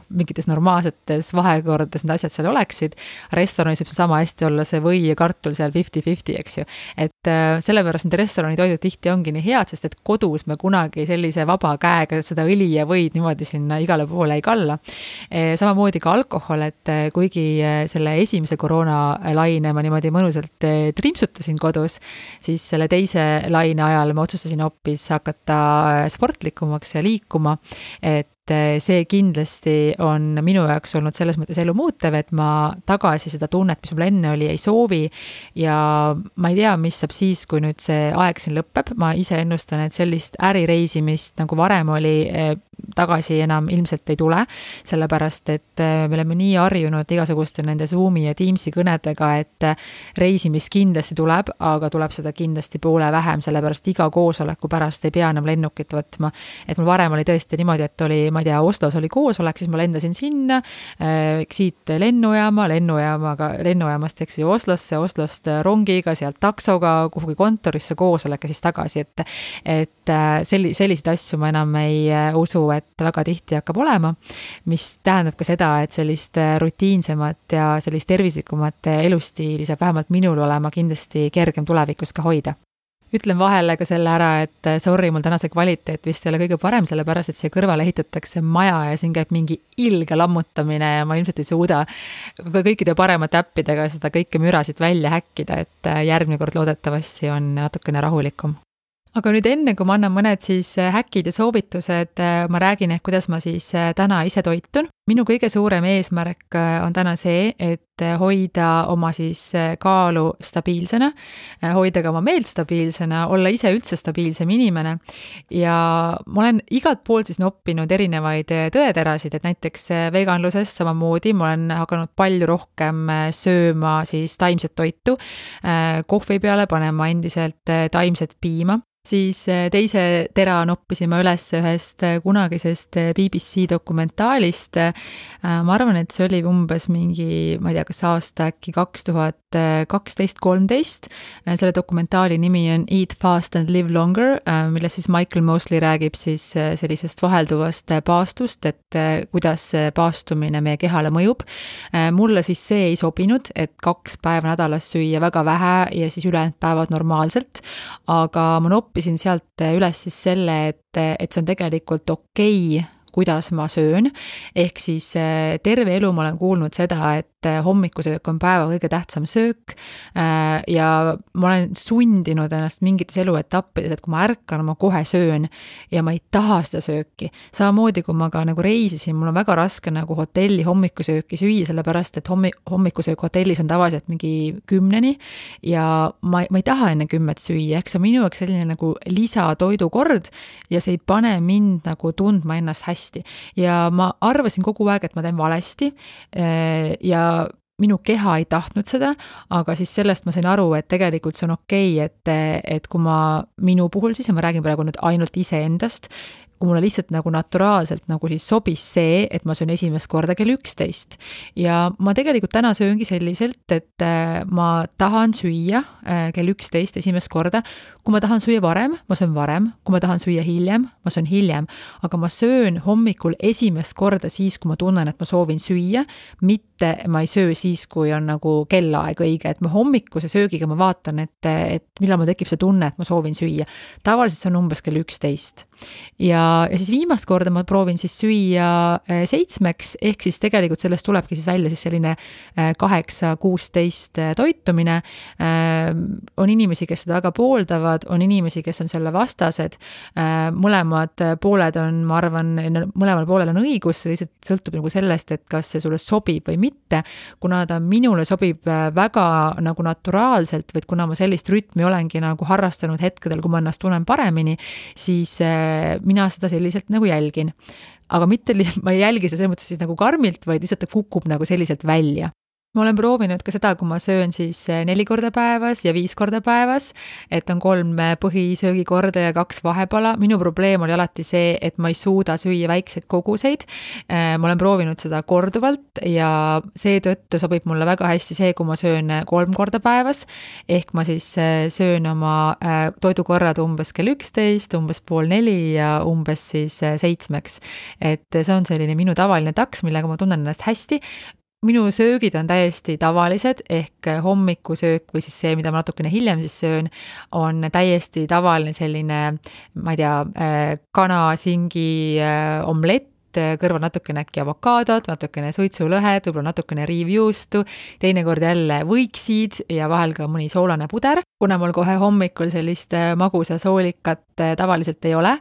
mingites normaalsetes vahekordades need asjad seal oleksid. Restoranis võib sama hästi olla see või ja kartul seal 50-50, eks ju. Et sellepärast need restorani toidud tihti ongi nii head, sest et kodus me kunagi sellise vaba käega seda õli ja võid niimoodi sinna igale poole ei kalla. Samamoodi ka alkohol, et kuigi selle esimese koroonalaine ma niimoodi mõnusalt trimpsutasin kodus, siis selle teise laine ajal ma otsustasin hoopis hakata sportlikumaks ja liikuma, et see kindlasti on minu jaoks olnud selles mõttes elu muutev, et ma tagasi seda tunnet, mis mul enne oli, ei soovi ja ma ei tea, mis saab siis, kui nüüd see aeg siin lõpeb. Ma ise ennustan, et sellist ärireisimist nagu varem oli tagasi enam ilmselt ei tule, sellepärast, et me oleme nii harjunud igasuguste nende Zoomi ja Teamsi kõnedega, et reisimist kindlasti tuleb, aga tuleb seda kindlasti poole vähem, sellepärast iga koosoleku pärast ei pea enam lennukit võtma. Et mul varem oli tõesti niimoodi, et oli, ma ei tea, Oslos oli koosolek, siis ma lendasin sinna, siit lennujaamast, eks ju, Oslost rongiga, sealt taksoga, kuhugi kontorisse koosolek ja siis tagasi, et selliseid asju ma enam ei usu, et väga tihti hakkab olema, mis tähendab ka seda, et sellist rutiinsemat ja sellist tervislikumat elustiili saab vähemalt minul olema kindlasti kergem tulevikus ka hoida. Ütlen vahele ka selle ära, et sorry, mul tänase kvaliteet vist ei ole kõige parem, sellepärast, et siia kõrvale ehitatakse maja ja siin käib mingi ilge lammutamine ja ma ilmselt ei suuda kõikide paremate äppidega seda kõike mürasid välja häkkida, et järgmine kord loodetavasti on natukene rahulikum. Aga nüüd enne, kui ma annan mõned siis häkid ja soovitused, ma räägin, kuidas ma siis täna ise toitun. minu kõige suurem eesmärk on täna see, et hoida oma siis kaalu stabiilsena, hoida ka oma meelt stabiilsena, olla ise üldse stabiilsem inimene. Ja ma olen igalt poolt siis noppinud erinevaid tõeterasid, et näiteks veganluses samamoodi ma olen hakanud palju rohkem sööma siis taimset toitu, kohvi peale panema endiselt taimset piima. Siis teise tera noppisime üles ühest kunagisest BBC dokumentaalist. Ma arvan, et see oli umbes mingi, ma ei tea, kas aasta äkki 2012-13. Selle dokumentaali nimi on Eat Fast and Live Longer, milles siis Michael Mosley räägib siis sellisest vahelduvast paastust, et kuidas paastumine meie kehale mõjub. Mulle siis see ei sobinud, et 2 päeva nädalas süüa väga vähe ja siis ülejäänud päevad normaalselt, aga ma noppisin sealt üles siis selle, et see on tegelikult okei, kuidas ma söön, ehk siis terve elu ma olen kuulnud seda, et hommikusöök on päeva kõige tähtsam söök ja ma olen sundinud ennast mingites eluetappides, et kui ma ärkan, ma kohe söön ja ma ei taha seda sööki. Samamoodi, kui ma ka nagu reisisin, mul on väga raske nagu hotelli hommikusööki süüa, sellepärast, et hommikusöök hotellis on tavaliselt mingi 10 ja ma ei taha enne 10 süüa, eks see on minu jaoks selline nagu lisatoidukord ja see ei pane mind nagu tundma ennast hästi. Ja ma arvasin kogu aeg, et ma teen valesti ja minu keha ei tahtnud seda, aga siis sellest ma sain aru, et tegelikult see on okei, et kui minu puhul siis, ja ma räägin praegu nüüd ainult iseendast, kui mulle lihtsalt nagu naturaalselt nagu siis sobis see, et ma söön esimest korda kell 11. Ja ma tegelikult täna sööngi selliselt, et ma tahan süüa kell 11 esimest korda. Kui ma tahan süüa varem, ma söön varem. Kui ma tahan süüa hiljem, ma söön hiljem. Aga ma söön hommikul esimest korda siis, kui ma tunnen, et ma soovin süüa, mitte ma ei söö siis, kui on nagu kellaaeg õige. Et ma hommikuse söögiga ma vaatan, et millal mul tekib see tunne, et ma soovin süüa. Tavaliselt see on umbes kell 11. Ja siis viimast korda ma proovin siis süüa 7, ehk siis tegelikult sellest tulebki siis välja siis selline 8-16 toitumine. On inimesi, kes seda väga pooldavad, on inimesi, kes on selle vastased. Mõlemad pooled on, ma arvan, mõlemal poolel on õigus, see lihtsalt sõltub nagu sellest, et kas see sulle sobib või mitte. Kuna ta minule sobib väga nagu naturaalselt, või kuna ma sellist rütmi olengi nagu harrastanud hetkedel, kui ma ennast tunnen paremini, siis mina seda selliselt nagu jälgin. Aga mitte, ma ei jälgi seda selles mõttes siis nagu karmilt, vaid lihtsalt ta kukub nagu selliselt välja. Ma olen proovinud ka seda, kui ma söön siis 4 korda päevas ja 5 korda päevas, et on 3 põhisöögikorda ja 2 vahepala. Minu probleem oli alati see, et ma ei suuda süüa väikseid koguseid. Ma olen proovinud seda korduvalt ja seetõttu sobib mulle väga hästi see, kui ma söön 3 korda päevas, ehk ma siis söön oma toidukorrad umbes kell 11, umbes 3:30 ja umbes siis 7. Et see on selline minu tavaline taks, millega ma tunnen ennast hästi. Minu söögid on täiesti tavalised, ehk hommikusöök või siis see, mida ma natukene hiljem siis söön, on täiesti tavaline selline, ma ei tea, kana-singi omlett, kõrval natukene äkki avokaadot, natukene suitsulõhed, võib-olla natukene riivjuustu, teinekord jälle võiksid ja vahel ka mõni soolane puder, kuna mul kohe hommikul sellist magusa soolikat tavaliselt ei ole.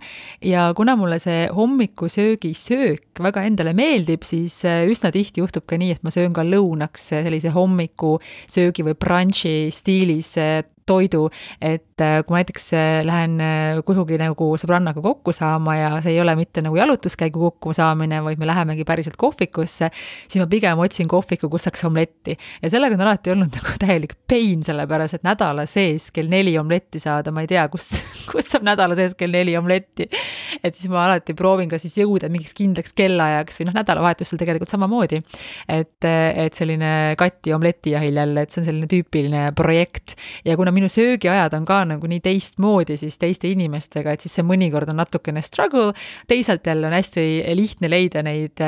Ja kuna mulle see hommikusöögi söök väga endale meeldib, siis üsna tihti juhtub ka nii, et ma söön ka lõunaks sellise hommikusöögi või brunchi stiilis toidu, et kui ma näiteks lähen kuhugi nagu sõbrannaga kokku saama ja see ei ole mitte nagu jalutuskäigu kokku saamine, vaid me lähemegi päriselt kohvikusse, siis ma pigem otsin kohviku, kus saaks omletti. Ja sellega on alati olnud nagu täielik pain, sellepärast, et nädala sees kell 4 omletti saada, ma ei tea, kus saab nädala sees kell 4 omletti. Et siis ma alati proovin ka siis jõuda mingiks kindlaks kellaajaks või nädalavahetusel tegelikult samamoodi. Et selline katti omletijahil jälle, et see on selline tüüpiline projekt. Ja kuna minu söögiajad on ka nagu nii teistmoodi siis teiste inimestega, et siis see mõnikord on natukene struggle, teisalt jälle on hästi lihtne leida neid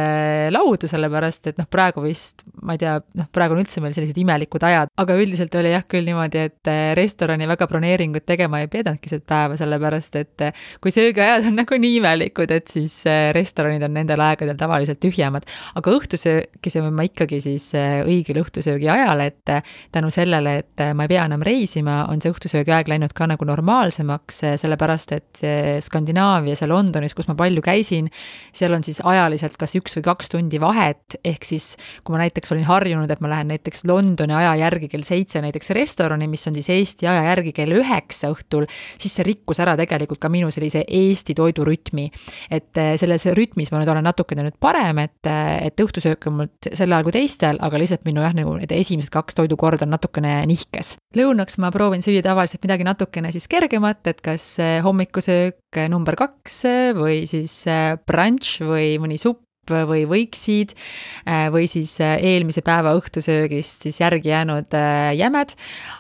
laudu, sellepärast, et praegu vist, ma ei tea, praegu on üldse meil sellised imelikud ajad, aga üldiselt oli jah küll niimoodi, et restorani väga broneeringut tegema ei pedanudki seda päeva, sellepärast, et kui söögiajad on nagu nagu nii imelikud, et siis restoranid on nendel aegadel tavaliselt tühjemad. Aga õhtusööki sööme ma ikkagi siis õigel õhtusöögi ajal, et tänu sellele, et ma ei pea enam reisima, on see õhtusöögi aeg läinud ka nagu normaalsemaks, sellepärast et Skandinaavias ja Londonis, kus ma palju käisin, seal on siis ajaliselt kas 1 või 2 tundi vahet, ehk siis kui ma näiteks olin harjunud, et ma lähen näiteks Londoni aja järgi kell 7 näiteks restorani, mis on siis Eesti aja järgi kell 9 õhtul, siis see rikkus ära tegelikult ka minu sellise Eesti toidurütmi. Et selles rütmis ma nüüd olen natukene nüüd parem, et õhtusöök on mul sel ajal kui teistel, aga lihtsalt minu nagu need esimesed 2 toidukord on natukene nihkes. Lõunaks ma proovin süüa tavaliselt midagi natukene siis kergemat, et kas hommikusöök number 2 või siis brunch või mõni supp või võiksid või siis eelmise päeva õhtusöögist siis järgi jäänud jämed,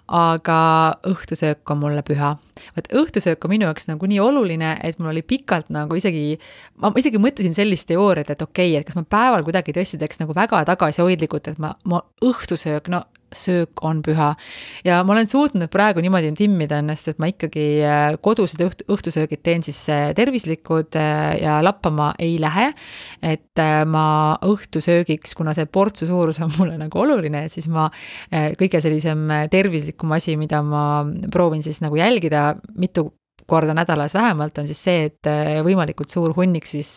aga õhtusöök on mulle püha. Võt õhtusöök on minu jaoks nagu nii oluline, et mul oli pikalt nagu ma isegi mõtlesin sellist teooriat, et okei, et kas ma päeval kuidagi tõesti teeks nagu väga tagasihoidlikult, et ma õhtusöök, no söök on püha. Ja ma olen suutnud praegu niimoodi timmida ennast, et ma ikkagi kodused õhtusöögid teen siis tervislikud ja lappama ei lähe, et ma õhtusöögiks, kuna see portsu suurus on mulle nagu oluline, et siis ma kõige sellisem tervislikum asi, mida ma proovin siis nagu jälgida mitu korda nädalas vähemalt, on siis see, et võimalikult suur hunnik siis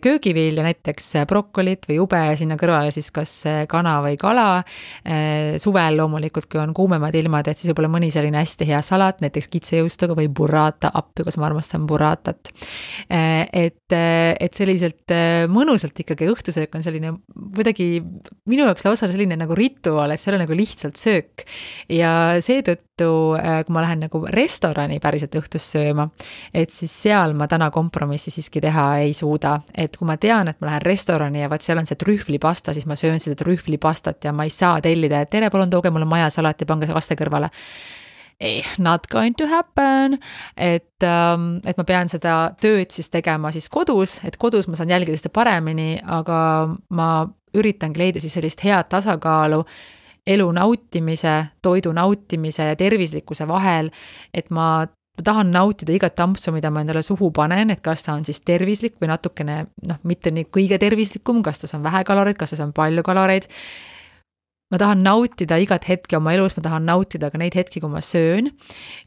köögivilja, näiteks brokolit või ube, sinna kõrvale siis kas kana või kala. Suvel loomulikult, kui on kuumemad ilmad, et siis võib-olla mõni selline hästi hea salat, näiteks kitsejõustuga või burrata appi, kus ma armastan burratat. Et selliselt mõnusalt ikkagi õhtusöök on selline kuidagi minu jaoks lausa selline nagu rituaal, et see ei ole nagu lihtsalt söök. Ja seetõttu, kui ma lähen nagu restorani päriselt õhtus sööma, et siis seal ma täna kompromissi siiski teha ei suuda. Et kui ma tean, et ma lähen restorani ja vaat seal on see trühvlipasta, siis ma söön seda trühvlipastat ja ma ei saa tellida, et tere, palun tooge mulle majasalat ja pange kaste kõrvale. Not going to happen, et ma pean seda tööd siis tegema siis kodus, et kodus ma saan jälgida seda paremini, aga ma üritangi leida siis sellist head tasakaalu elu nautimise, toidu nautimise ja tervislikkuse vahel, et ma tahan nautida igat tampsu, mida ma endale suhu panen, et kas ta on siis tervislik või natukene, mitte nii kõige tervislikum, kas ta on vähe kaloreid, kas ta on palju kaloreid. Ma tahan nautida igat hetke oma elus, ma tahan nautida ka neid hetki, kui ma söön.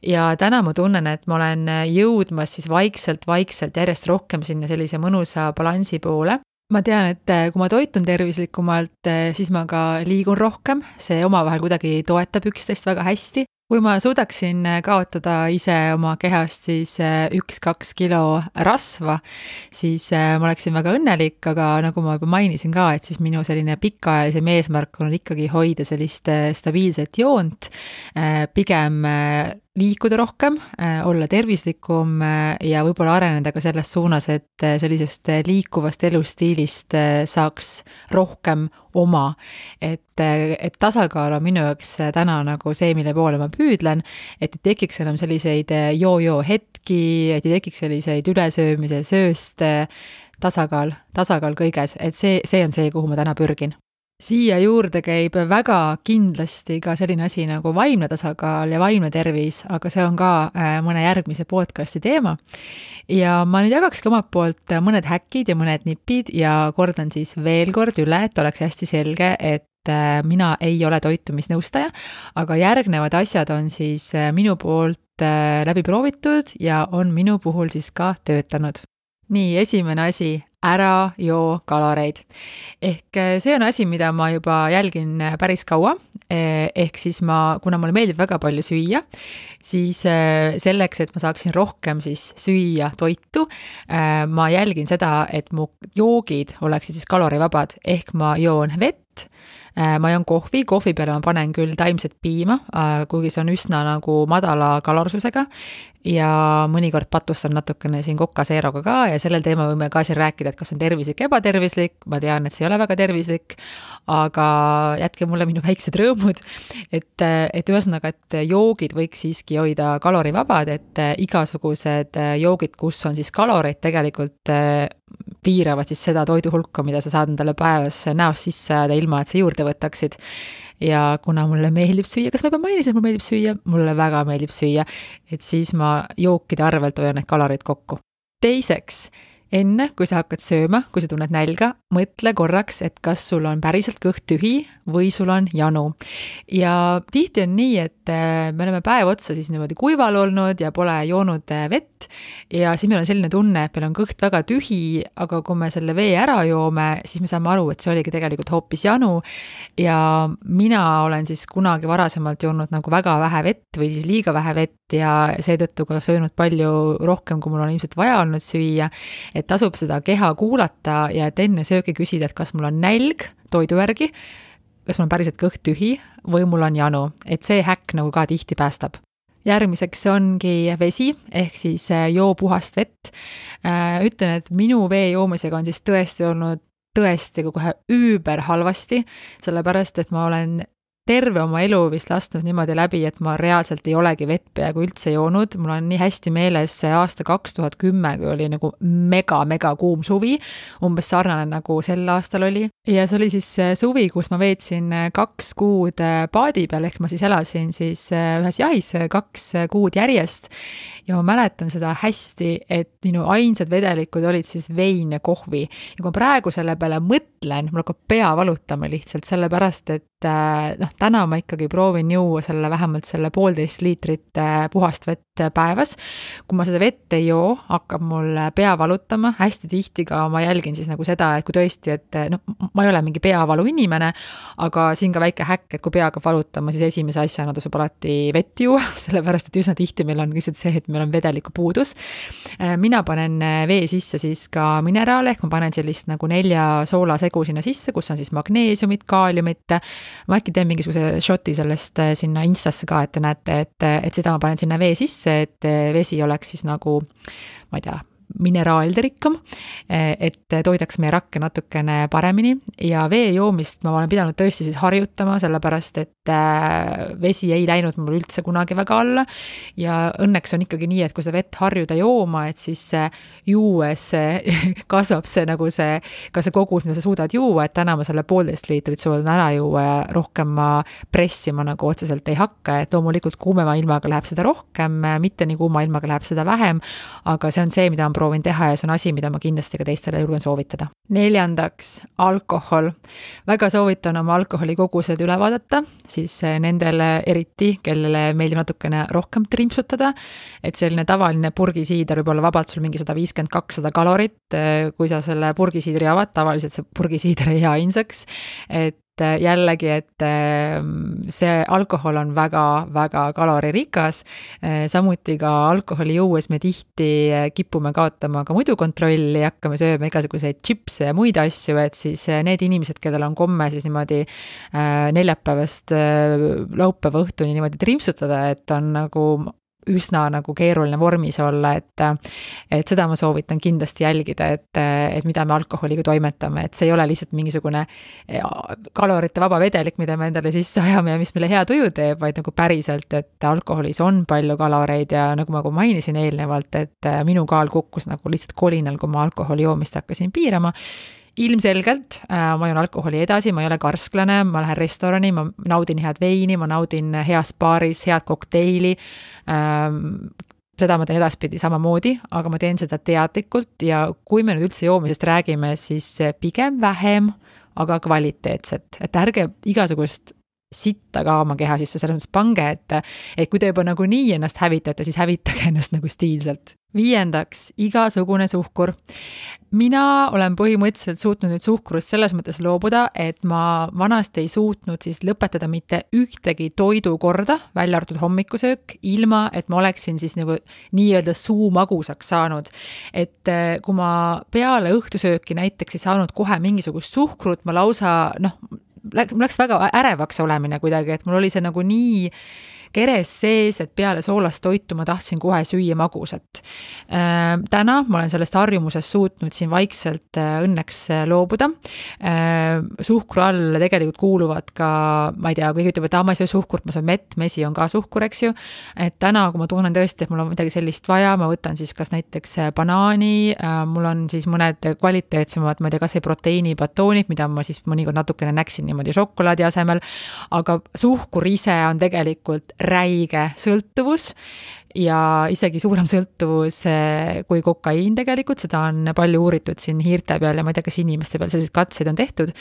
Ja täna ma tunnen, et ma olen jõudmas siis vaikselt järjest rohkem sinna sellise mõnusa balansi poole. Ma tean, et kui ma toitun tervislikumalt, siis ma ka liigun rohkem, see omavahel kuidagi toetab üksteist väga hästi. Kui ma suudaksin kaotada ise oma kehast siis 1-2 kilo rasva, siis ma oleksin väga õnnelik, aga nagu ma juba mainisin ka, et siis minu selline pikaajalisem eesmärk on ikkagi hoida sellist stabiilset joont, pigem liikuda rohkem, olla tervislikum ja võib-olla areneda ka selles suunas, et sellisest liikuvast elustiilist saaks rohkem oma. Et tasakaal on minu jaoks täna nagu see, mille poole ma püüdlen, et ei tekiks enam selliseid joo-joo hetki, et ei tekiks selliseid ülesöömise sööst, tasakaal kõiges, et see on see, kuhu ma täna pürgin. Siia juurde käib väga kindlasti ka selline asi nagu vaimne tasakaal ja vaimne tervis, aga see on ka mõne järgmise podcasti teema. Ja ma nüüd jagakski omalt poolt mõned häkid ja mõned nipid ja kordan siis veel kord üle, et oleks hästi selge, et mina ei ole toitumisnõustaja, aga järgnevad asjad on siis minu poolt läbi proovitud ja on minu puhul siis ka töötanud. Nii, esimene asi, ära joo kaloreid. Ehk see on asi, mida ma juba jälgin päris kaua, ehk siis kuna mulle meeldib väga palju süüa, siis selleks, et ma saaksin rohkem siis süüa toitu, ma jälgin seda, et mu joogid oleksid siis kalorivabad, ehk ma joon vett, ma joon kohvi peale ma panen küll taimset piima, kuigi see on üsna nagu madala kalorsusega ja mõnikord patustan natukene siin kokaseeroga ka ja sellel teema võime ka siin rääkida, et kas on tervislik, ebatervislik, ma tean, et see ei ole väga tervislik, aga jätke mulle minu väiksed rõõmud, et ühesõnaga, et joogid võiks siiski hoida kalorivabad, et igasugused joogid, kus on siis kaloreid tegelikult piiravad siis seda toidu hulka, mida sa saad endale päevas näost sisse ajada ilma, et sa juurde võtaksid. Ja kuna mulle meeldib süüa, kas ma juba mainisin, et mulle meeldib süüa? Mulle väga meeldib süüa, et siis ma jookide arvelt hoian need kalorid kokku. Teiseks, enne kui sa hakkad sööma, kui sa tunned nälga, mõtle korraks, et kas sul on päriselt kõht tühi või sul on janu. Ja tihti on nii, et me oleme päev otsa siis niimoodi kuival olnud ja pole joonud vett ja siis meil on selline tunne, et meil on kõht väga tühi, aga kui me selle vee ära joome, siis me saame aru, et see oligi tegelikult hoopis janu. Ja mina olen siis kunagi varasemalt joonud nagu väga vähe vett või siis liiga vähe vett ja seetõttu ka söönud palju rohkem, kui mul on ilmselt vaja olnud süüa. Et tasub seda keha kuulata ja et enne söögi küsida, et kas mul on nälg toidu järgi, kas mul on päriselt kõht tühi või mul on janu, et see häkk nagu ka tihti päästab. Järgmiseks ongi vesi, ehk siis joo puhast vett. Ütlen, et minu vee joomisega on siis tõesti olnud kohe üüber halvasti, sellepärast, et ma olen terve oma elu vist lasknud niimoodi läbi, et ma reaalselt ei olegi vett peaaegu üldse joonud. Mul on nii hästi meeles aasta 2010, kui oli nagu mega kuum suvi, umbes sarnane nagu sel aastal oli. Ja see oli siis suvi, kus ma veetsin 2 kuud paadi peal, ehk ma siis elasin siis ühes jahis 2 kuud järjest. Ja ma mäletan seda hästi, et minu ainsad vedelikud olid siis vein ja kohvi. Ja kui ma praegu selle peale mõtlen, mul hakkab pea valutama lihtsalt sellepärast, et täna ma ikkagi proovin juua vähemalt selle 1,5 liitrit puhast vett päevas. Kui ma seda vett ei joo, hakkab mul pea valutama. Hästi tihti ka ma jälgin siis nagu seda, et kui tõesti, et ma ei ole mingi peavalu inimene, aga siin ka väike häkk, et kui pea hakkab valutama, siis esimese asjana tasub alati vett juua, sellepärast, et üsna tihti meil on lihtsalt see, et meil on vedeliku puudus. Mina panen vee sisse siis ka mineraale, ehk ma panen sellist nagu 4 soolasegu sinna sisse, kus on siis magneesiumit, kaaliumit. Ma äkki teen mingisuguse shoti sellest sinna Instasse ka, et te näete, et seda ma panen sinna vee sisse, et vesi oleks siis nagu, ma ei tea, mineraalide rikkam, et toidaks meie rakke natukene paremini ja vee joomist ma olen pidanud tõesti siis harjutama, sellepärast et vesi ei läinud mul üldse kunagi väga alla ja õnneks on ikkagi nii, et kui sa vett harjuda jooma, et siis juues kasvab see nagu see, ka see kogus, mida sa suudad juua, et täna ma selle 1,5 liitrit suudan ära juua ja rohkem ma pressima nagu otseselt ei hakka, et loomulikult kuumema ilmaga läheb seda rohkem, mitte nii kuuma ilmaga läheb seda vähem, aga see on see, mida on proovin teha ja see on asi, mida ma kindlasti ka teistele julgen soovitada. 4. alkohol. Väga soovitan oma alkoholikogused üle vaadata, siis nendele eriti, kellele meeldib natukene rohkem trimpsutada, et selline tavaline purgisiider võib olla vabalt sul mingi 150-200 kalorit, kui sa selle purgisiidri avad, tavaliselt see purgisiider ei jää ainsaks, et jällegi, et see alkohol on väga kaloririkas, samuti ka alkoholi juues me tihti kipume kaotama ka muidu kontrolli, hakkame sööma igasuguseid chipse ja muid asju, et siis need inimesed, kellel on komme siis niimoodi neljapäevast laupäeva õhtuni niimoodi trimpsutada, et on nagu üsna nagu keeruline vormis olla, et seda ma soovitan kindlasti jälgida, et mida me alkoholiga toimetame, et see ei ole lihtsalt mingisugune kalorite vaba vedelik, mida me endale sisse ajame ja mis meile hea tuju teeb, vaid nagu päriselt, et alkoholis on palju kaloreid ja nagu ma mainisin eelnevalt, et minu kaal kukkus nagu lihtsalt kolinal, kui ma alkoholi joomist hakkasin piirama. Ilmselgelt ma joon alkoholi edasi, ma ei ole karsklane, ma lähen restorani, ma naudin head veini, ma naudin heas baaris, head kokteili, seda ma teen edaspidi samamoodi, aga ma teen seda teadlikult ja kui me nüüd üldse joomisest räägime, siis pigem vähem, aga kvaliteetset, et ärge igasugust sitta ka oma keha sisse, selles mõttes pange, et kui te juba nagu nii ennast hävitate, siis hävitage ennast nagu stiilselt. 5. igasugune suhkur. Mina olen põhimõtteliselt suutnud nüüd suhkurust selles mõttes loobuda, et ma vanasti ei suutnud siis lõpetada mitte ühtegi toidukorda, välja arvatud hommikusöök, ilma et ma oleksin siis nagu nii-öelda suu magusaks saanud. Et kui ma peale õhtusööki näiteks ei saanud kohe mingisugust suhkrut, ma lausa, mul läks väga ärevaks olemine kuidagi, et mul oli see nagu nii keres sees, et peale soolast toitu ma tahtsin kohe süüa magusat. Täna ma olen sellest harjumusest suutnud siin vaikselt õnneks loobuda. Suhkru all tegelikult kuuluvad ka, ma ei tea, kui ütleb, et ma ei söö suhkurt, ma söön mett, mesi on ka suhkur, eks ju. Et täna, kui ma tunnen tõesti, et mul on midagi sellist vaja, ma võtan siis kas näiteks banaani, mul on siis mõned kvaliteetsemad, ma ei tea, kas ei proteiinibatoonid, mida ma siis mõnikord natukene näksin niimoodi šokolaadi asemel, aga suhkur ise on tegelikult räige sõltuvus ja isegi suurem sõltuvus kui kokaiin tegelikult, seda on palju uuritud siin hiirte peal ja ma ei tea, kas inimeste peal selliseid katseid on tehtud,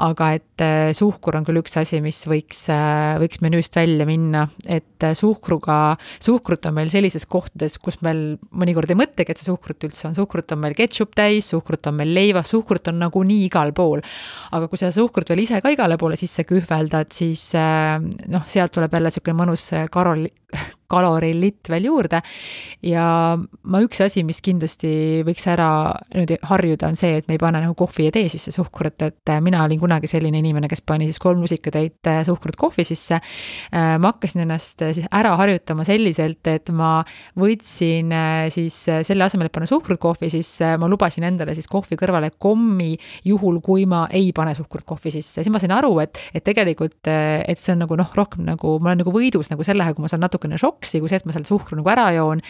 aga et suhkur on küll üks asi, mis võiks menüüst välja minna, et suhkrut on meil sellises kohtades, kus meil mõnikord ei mõtlegi, et see suhkrut üldse on, suhkrut on meil ketšup täis, suhkrut on meil leivas, suhkrut on nagunii igal pool, aga kui sa suhkrut veel ise ka igale poole sisse kühveldad, siis sealt tuleb jälle selline mõnus kalorilitt veel juurde ja üks asi, mis kindlasti võiks ära nüüd harjuda, on see, et me ei pane nagu kohvi ja tee sisse suhkrut, et mina olin kunagi selline inimene, kes pani siis 3 lusikatäit suhkrut kohvi sisse. Ma hakkasin ennast siis ära harjutama selliselt, et ma võtsin siis selle asemel, et panna suhkrut kohvi, siis ma lubasin endale siis kohvi kõrvale kommi, juhul kui ma ei pane suhkrut kohvi sisse. Siis ma sain aru, et tegelikult, et see on nagu rohkem nagu, ma olen nagu võidus nagu sellega, kui ma saan natukene šoksi, kui see, et ma selle suhkru nagu ära joon.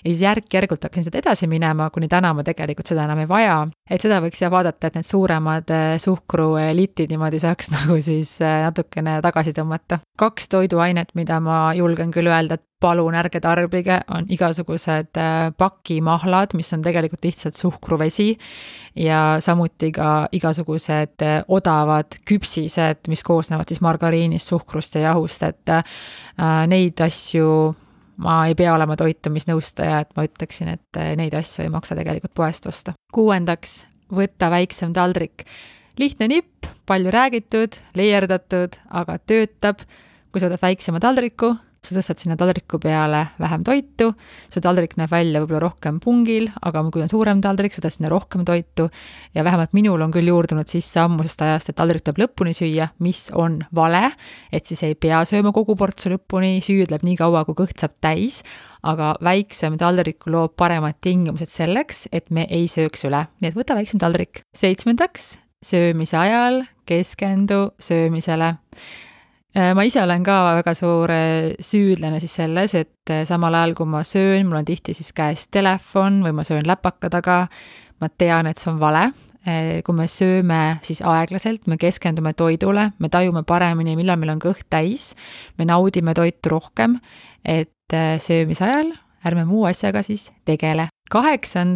Ja siis järk-järgult hakkasin seda edasi minema, kuni täna ma tegelikult seda enam ei vaja. Et seda võiks vaadata, et need suuremad suhkruelitid niimoodi saaks nagu siis natukene tagasi tõmmata. 2 toiduainet, mida ma julgen küll öelda, et palun ärge tarbige, on igasugused pakimahlad, mis on tegelikult lihtsalt suhkruvesi ja samuti ka igasugused odavad küpsised, mis koosnevad siis margariinist, suhkrust ja jahust, et neid asju ma ei pea olema toitumisnõustaja, et ma ütleksin, et neid asju ei maksa tegelikult poest osta. 6. Võtta väiksem taldrik. Lihtne nipp, palju räägitud, leierdatud, aga töötab. Kui sa võtad väiksema taldriku, sa tõstad sinna taldriku peale vähem toitu, su taldrik näeb välja võib-olla rohkem pungil, aga kui on suurem taldrik, sa tõstad sinna rohkem toitu ja vähemalt minul on küll juurdunud sisse ammusest ajast, et taldrik tuleb lõpuni süüa, mis on vale, et siis ei pea sööma kogu portsu lõpuni, süüdleb nii kaua, kui kõht saab täis, aga väiksem taldrik loob paremad tingimused selleks, et me ei sööks üle. Nii et võta väiksem taldrik. 7. Söömise ajal keskendu söömisele. Ma ise olen ka väga suur süüdlane siis selles, et samal ajal kui ma söön, mul on tihti siis käes telefon või ma söön läpaka taga, ma tean, et see on vale. Kui me sööme siis aeglaselt, me keskendume toidule, me tajume paremini, millal meil on kõht täis, me naudime toitu rohkem, et söömise ajal ärme muu asjaga siis tegele. 8.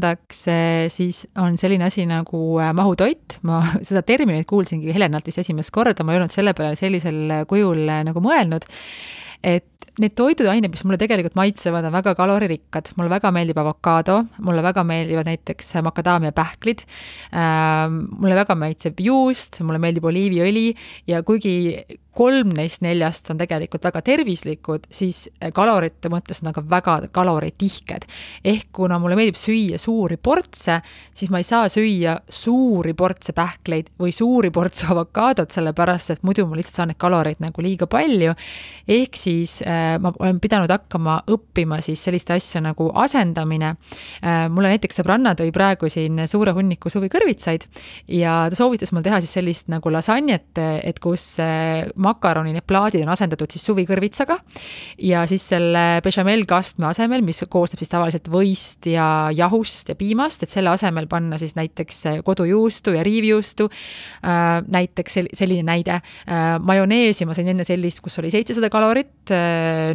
siis on selline asi nagu mahutoit. Ma seda terminit kuulsingi Helenalt vist esimest korda, ma ei olnud selle peale sellisel kujul nagu mõelnud, et need toiduained, mis mulle tegelikult maitsevad, on väga kaloririkkad. Mulle väga meeldib avokaado, mulle väga meeldivad näiteks makadaamia pähklid, mulle väga maitseb juust, mulle meeldib oliiviõli ja kuigi 3 neist 4 on tegelikult väga tervislikud, siis kalorite mõttes on aga väga kaloritihked. Ehk kuna mulle meeldib süüa suuri portse, siis ma ei saa süüa suuri portse pähkleid või suuri portse avokaadot, sellepärast, et muidu ma lihtsalt saan need kaloreid nagu liiga palju. Ehk siis ma olen pidanud hakkama õppima siis selliste asja nagu asendamine. Mulle näiteks sõbranna tõi praegu siin suure hunniku suvikõrvitsaid ja ta soovitas mul teha siis sellist nagu lasanjet, et kus makaroni need plaadid on asendatud siis suvikõrvitsaga ja siis selle bechamel-kastme asemel, mis koosneb siis tavaliselt võist ja jahust ja piimast, et selle asemel panna siis näiteks kodujuustu ja riivjuustu, näiteks selline näide. Majoneesi ma sain enne sellist, kus oli 700 kalorit,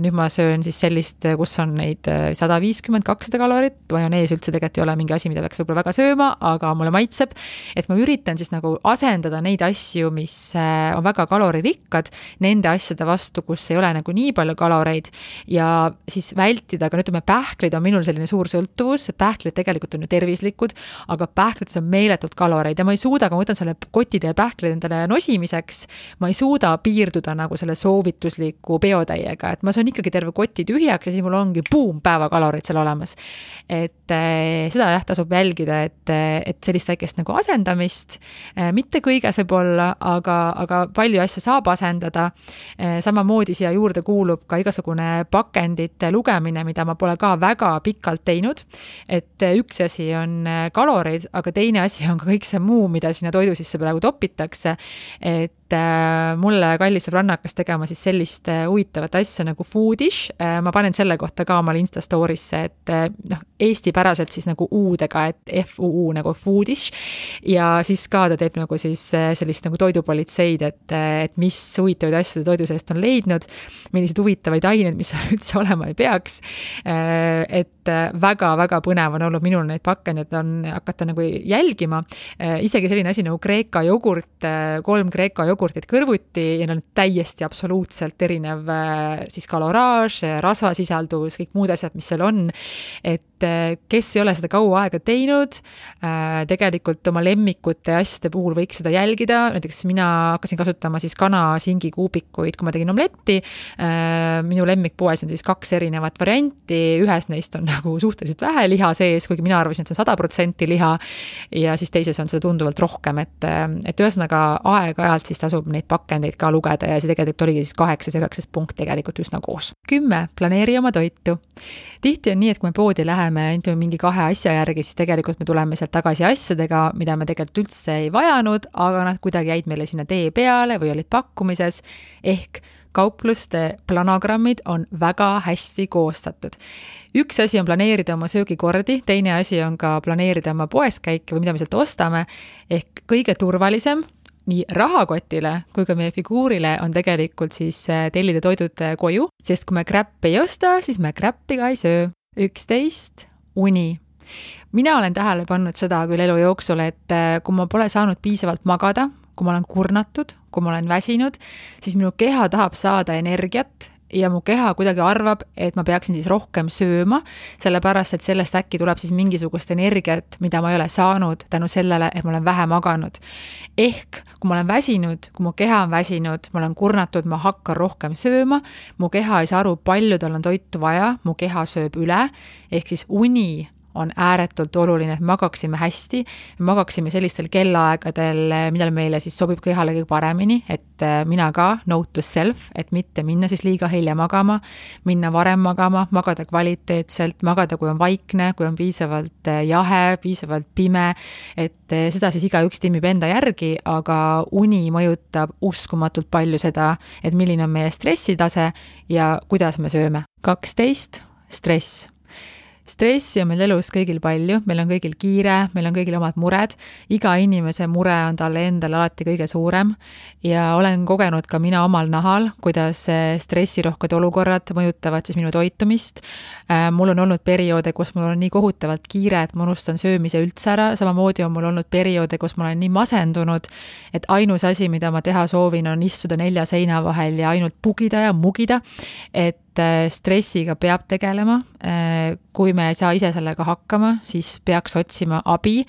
nüüd ma söön siis sellist, kus on neid 150-200 kalorit, majonees üldse tegelikult ei ole mingi asi, mida peaks võib-olla väga sööma, aga mulle maitseb, et ma üritan siis nagu asendada neid asju, mis on väga kaloririkka, nende asjade vastu, kus ei ole nagu nii palju kaloreid ja siis vältida, aga ütleme, pähklid on minul selline suur sõltuvus, pähklid tegelikult on ju tervislikud, aga pähklides on meeletult kaloreid ja ma ei suuda, kui ma võtan selle kotide ja pähklid endale nosimiseks, ma ei suuda piirduda nagu selle soovitusliku peotäiega, et ma söön ikkagi terve koti tühjaks ja siis mul ongi päevakalorid seal olemas. Et seda jah, tasub jälgida, et sellist väikest nagu asendamist, mitte kõiges võib olla, aga palju asju saab asendada. Samamoodi siia juurde kuulub ka igasugune pakendite lugemine, mida ma pole ka väga pikalt teinud. Et üks asi on kalorid, aga teine asi on ka kõik see muu, mida sinna toidu sisse praegu topitakse. Et et mulle kallis sõbranna hakkas tegema siis sellist huvitavat asja nagu Foodish. Ma panen selle kohta ka omal Insta story'sse, et eestipäraselt siis nagu U-dega, et FUU nagu Foodish. Ja siis ka ta teeb nagu siis sellist nagu toidupolitseid, et mis huvitavaid asju toidu seest on leidnud, millised huvitavaid aineid, mis üldse olema ei peaks. Et väga-väga põnev on olnud minul neid pakendeid on hakata nagu jälgima. Isegi selline asi nagu Kreeka jogurt, 3 Kreeka jogurtit kõrvuti ja need on täiesti absoluutselt erinev siis kaloraaž, rasvasisaldus, kõik muud asjad, mis seal on. Et kes ei ole seda kaua aega teinud, tegelikult oma lemmikute asjade puhul võiks seda jälgida. Näiteks mina hakkasin kasutama siis kana-singi kuubikuid, kui ma tegin omletti. Minu lemmikpoes on siis 2 erinevat varianti. Ühes neist on nagu suhteliselt vähe liha sees, kuigi mina arvasin, et see on 100% liha ja siis teises on seda tunduvalt rohkem, et ühesõnaga aeg-ajalt siis tasub neid pakendeid ka lugeda ja see tegelikult oligi siis 8 ja 9 punkt tegelikult üsna koos. 10. Planeeri oma toitu. Tihti on nii, et kui me poodi läheme mingi 2 asja järgi, siis tegelikult me tuleme sealt tagasi asjadega, mida me tegelikult üldse ei vajanud, aga nad kuidagi jäid meile sinna tee peale või olid pakkumises, ehk kaupluste planogrammid on väga hästi koostatud. Üks asi on planeerida oma söögikordi, teine asi on ka planeerida oma poeskäike või mida me sealt ostame, ehk kõige turvalisem nii rahakotile kui ka meie figuurile on tegelikult siis tellida toidud koju, sest kui me kräppi ei osta, siis me kräppi ka ei söö. 11. Uni. Mina olen tähele pannud seda küll elu jooksul, et kui ma pole saanud piisavalt magada, kui ma olen kurnatud, kui ma olen väsinud, siis minu keha tahab saada energiat ja mu keha kuidagi arvab, et ma peaksin siis rohkem sööma, sellepärast, et sellest äkki tuleb siis mingisugust energiat, mida ma ei ole saanud tänu sellele, et ma olen vähe maganud. Ehk, kui ma olen väsinud, kui mu keha on väsinud, ma olen kurnatud, ma hakkan rohkem sööma, mu keha ei saa aru, palju tal on toitu vaja, mu keha sööb üle, ehk siis uni on ääretult oluline, et magaksime hästi, magaksime sellistel kellaaegadel, millal meile siis sobib kehale kõige paremini, et mina ka, note to self, et mitte minna siis liiga hilja magama, minna varem magama, magada kvaliteetselt, magada, kui on vaikne, kui on piisavalt jahe, piisavalt pime, et seda siis igaüks timmib enda järgi, aga uni mõjutab uskumatult palju seda, et milline on meie stressitase ja kuidas me sööme. 12. Stress. Stressi on meil elus kõigil palju, meil on kõigil kiire, meil on kõigil omad mured, iga inimese mure on talle endale alati kõige suurem ja olen kogenud ka mina omal nahal, kuidas stressirohked olukorrad mõjutavad siis minu toitumist. Mul on olnud perioode, kus mul on nii kohutavalt kiire, et ma unustan söömise üldse ära, samamoodi on mul olnud perioode, kus ma olen nii masendunud, et ainus asi, mida ma teha soovin, on istuda 4 seina vahel ja ainult pugida ja mugida, et stressiga peab tegelema. Kui me ei saa ise sellega hakkama, siis peaks otsima abi.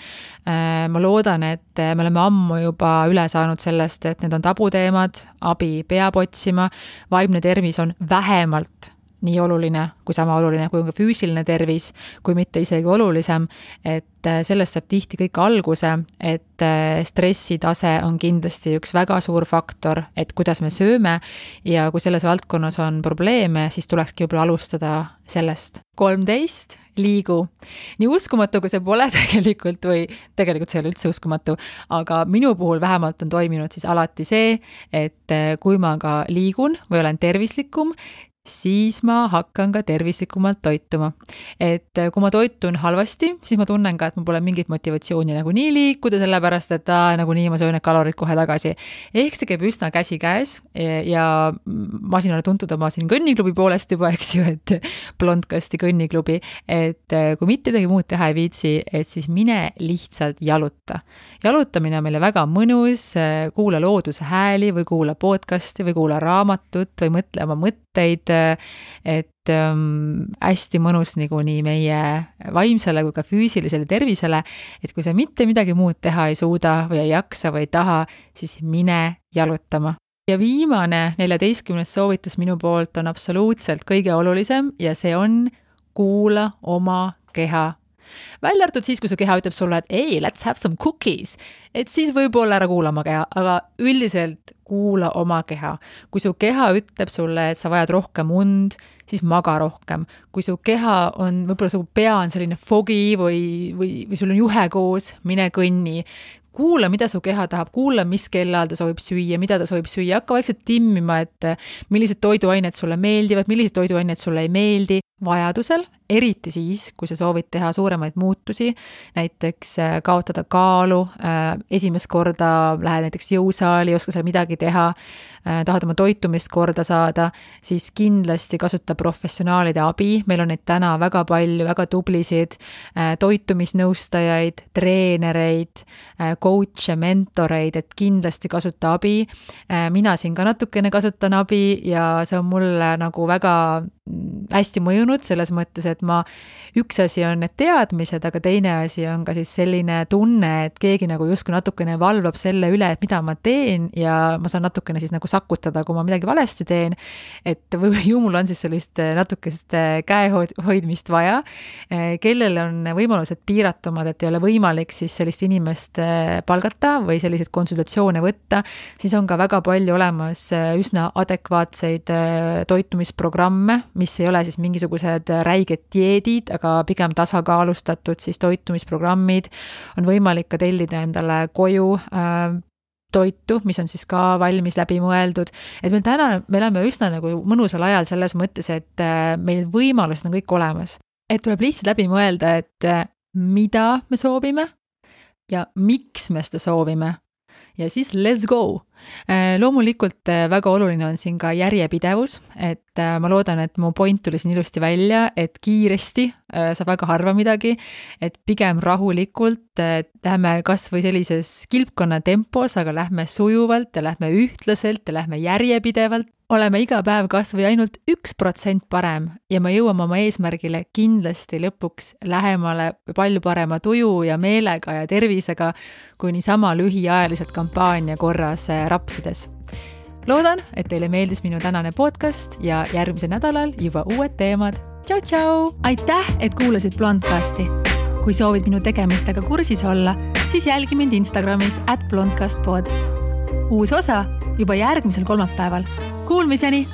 Ma loodan, et me oleme ammu juba üle saanud sellest, et need on tabuteemad, abi peab otsima, vaimne tervis on vähemalt nii oluline kui sama oluline, kui on ka füüsiline tervis, kui mitte isegi olulisem, et sellest saab tihti kõik alguse, et stressitase on kindlasti üks väga suur faktor, et kuidas me sööme ja kui selles valdkonnas on probleeme, siis tulekski võib-olla alustada sellest. 13. Liigu. Nii uskumatu, kui see pole tegelikult või tegelikult see ei ole üldse uskumatu, aga minu puhul vähemalt on toiminud siis alati see, et kui ma ka liigun või olen tervislikum, siis ma hakkan ka tervislikumalt toituma. Et kui ma toitun halvasti, siis ma tunnen ka, et mul pole mingit motivatsiooni nagu nii liikuda, sellepärast, et nagu nii ma söön need kalorid kohe tagasi. Ehk see käib üsna käsi käes ja ma siin olen tuntud oma siin kõnniklubi poolest juba, eks ju, et blondkasti kõnniklubi, et kui mitte midagi muud teha ei viitsi, et siis mine lihtsalt jaluta. Jalutamine on meile väga mõnus, kuula looduse hääli või kuula podcasti või kuula raamatut või mõtle oma mõtteid, et hästi mõnus nii meie vaimsele kui ka füüsilisele tervisele, et kui sa mitte midagi muud teha ei suuda või ei jaksa või ei taha, siis mine jalutama. Ja viimane 14. soovitus minu poolt on absoluutselt kõige olulisem ja see on kuula oma keha. Välja arvatud siis, kui su keha ütleb sulle, et ei, let's have some cookies, et siis võib-olla ära kuula oma keha, aga üldiselt kuula oma keha. Kui su keha ütleb sulle, et sa vajad rohkem und, siis maga rohkem. Kui su keha on, võib-olla su pea on selline fogi või sul on juhe koos, mine kõnni. kuula, mida su keha tahab, kuula, mis kellaajal ta soovib süüa, mida ta soovib süüa, hakka vaikselt timmima, et millised toiduained sulle meeldivad, millised toiduained sulle ei meeldi, vajadusel, eriti siis, kui sa soovid teha suuremaid muutusi, näiteks kaotada kaalu, esimest korda lähed näiteks jõusaali, ei oska seal midagi teha, tahad oma toitumist korda saada, siis kindlasti kasuta professionaalide abi, meil on neid täna väga palju, väga tublisid toitumisnõustajaid, treenereid, coach'e, mentoreid, et kindlasti kasuta abi. Mina siin ka natukene kasutan abi ja see on mulle nagu väga hästi mõjunud selles mõttes, et üks asi on need teadmised, aga teine asi on ka siis selline tunne, et keegi nagu justkui natukene valvab selle üle, et mida ma teen ja ma saan natukene siis nagu sakutada, kui ma midagi valesti teen, et ju mul on siis sellist natukest käehoidmist vaja, kellel on võimalused piiratumad, et ei ole võimalik siis sellist inimest palgata või selliseid konsultatsioone võtta, siis on ka väga palju olemas üsna adekvaatseid toitumisprogramme, mis ei ole siis mingisugused räiged dieedid, aga pigem tasakaalustatud siis toitumisprogrammid, on võimalik ka tellida endale koju toitu, mis on siis ka valmis läbi mõeldud, et me elame üsna nagu mõnusal ajal selles mõttes, et meil võimalused on kõik olemas, et tuleb lihtsalt läbi mõelda, et mida me soovime ja miks me seda soovime ja siis let's go. Loomulikult väga oluline on siin ka järjepidevus, et ma loodan, et mu point tuli siin ilusti välja, et kiiresti saab väga harva midagi, et pigem rahulikult lähme kas või sellises kilpkonna tempos, aga lähme sujuvalt ja lähme ühtlaselt ja lähme järjepidevalt. Oleme iga päev kas või ainult 1% parem ja me jõuame oma eesmärgile kindlasti lõpuks lähemale palju parema tuju ja meelega ja tervisega, kui niisama lühiajaliselt kampaania korras rapsides. Loodan, et teile meeldis minu tänane podcast ja järgmisel nädalal juba uued teemad. Tšau, tšau! Aitäh, et kuulasid Blondcasti! Kui soovid minu tegemistega kursis olla, siis jälgi mind Instagramis @blondcastpod. Uus osa juba järgmisel kolmapäeval. Kuulmiseni!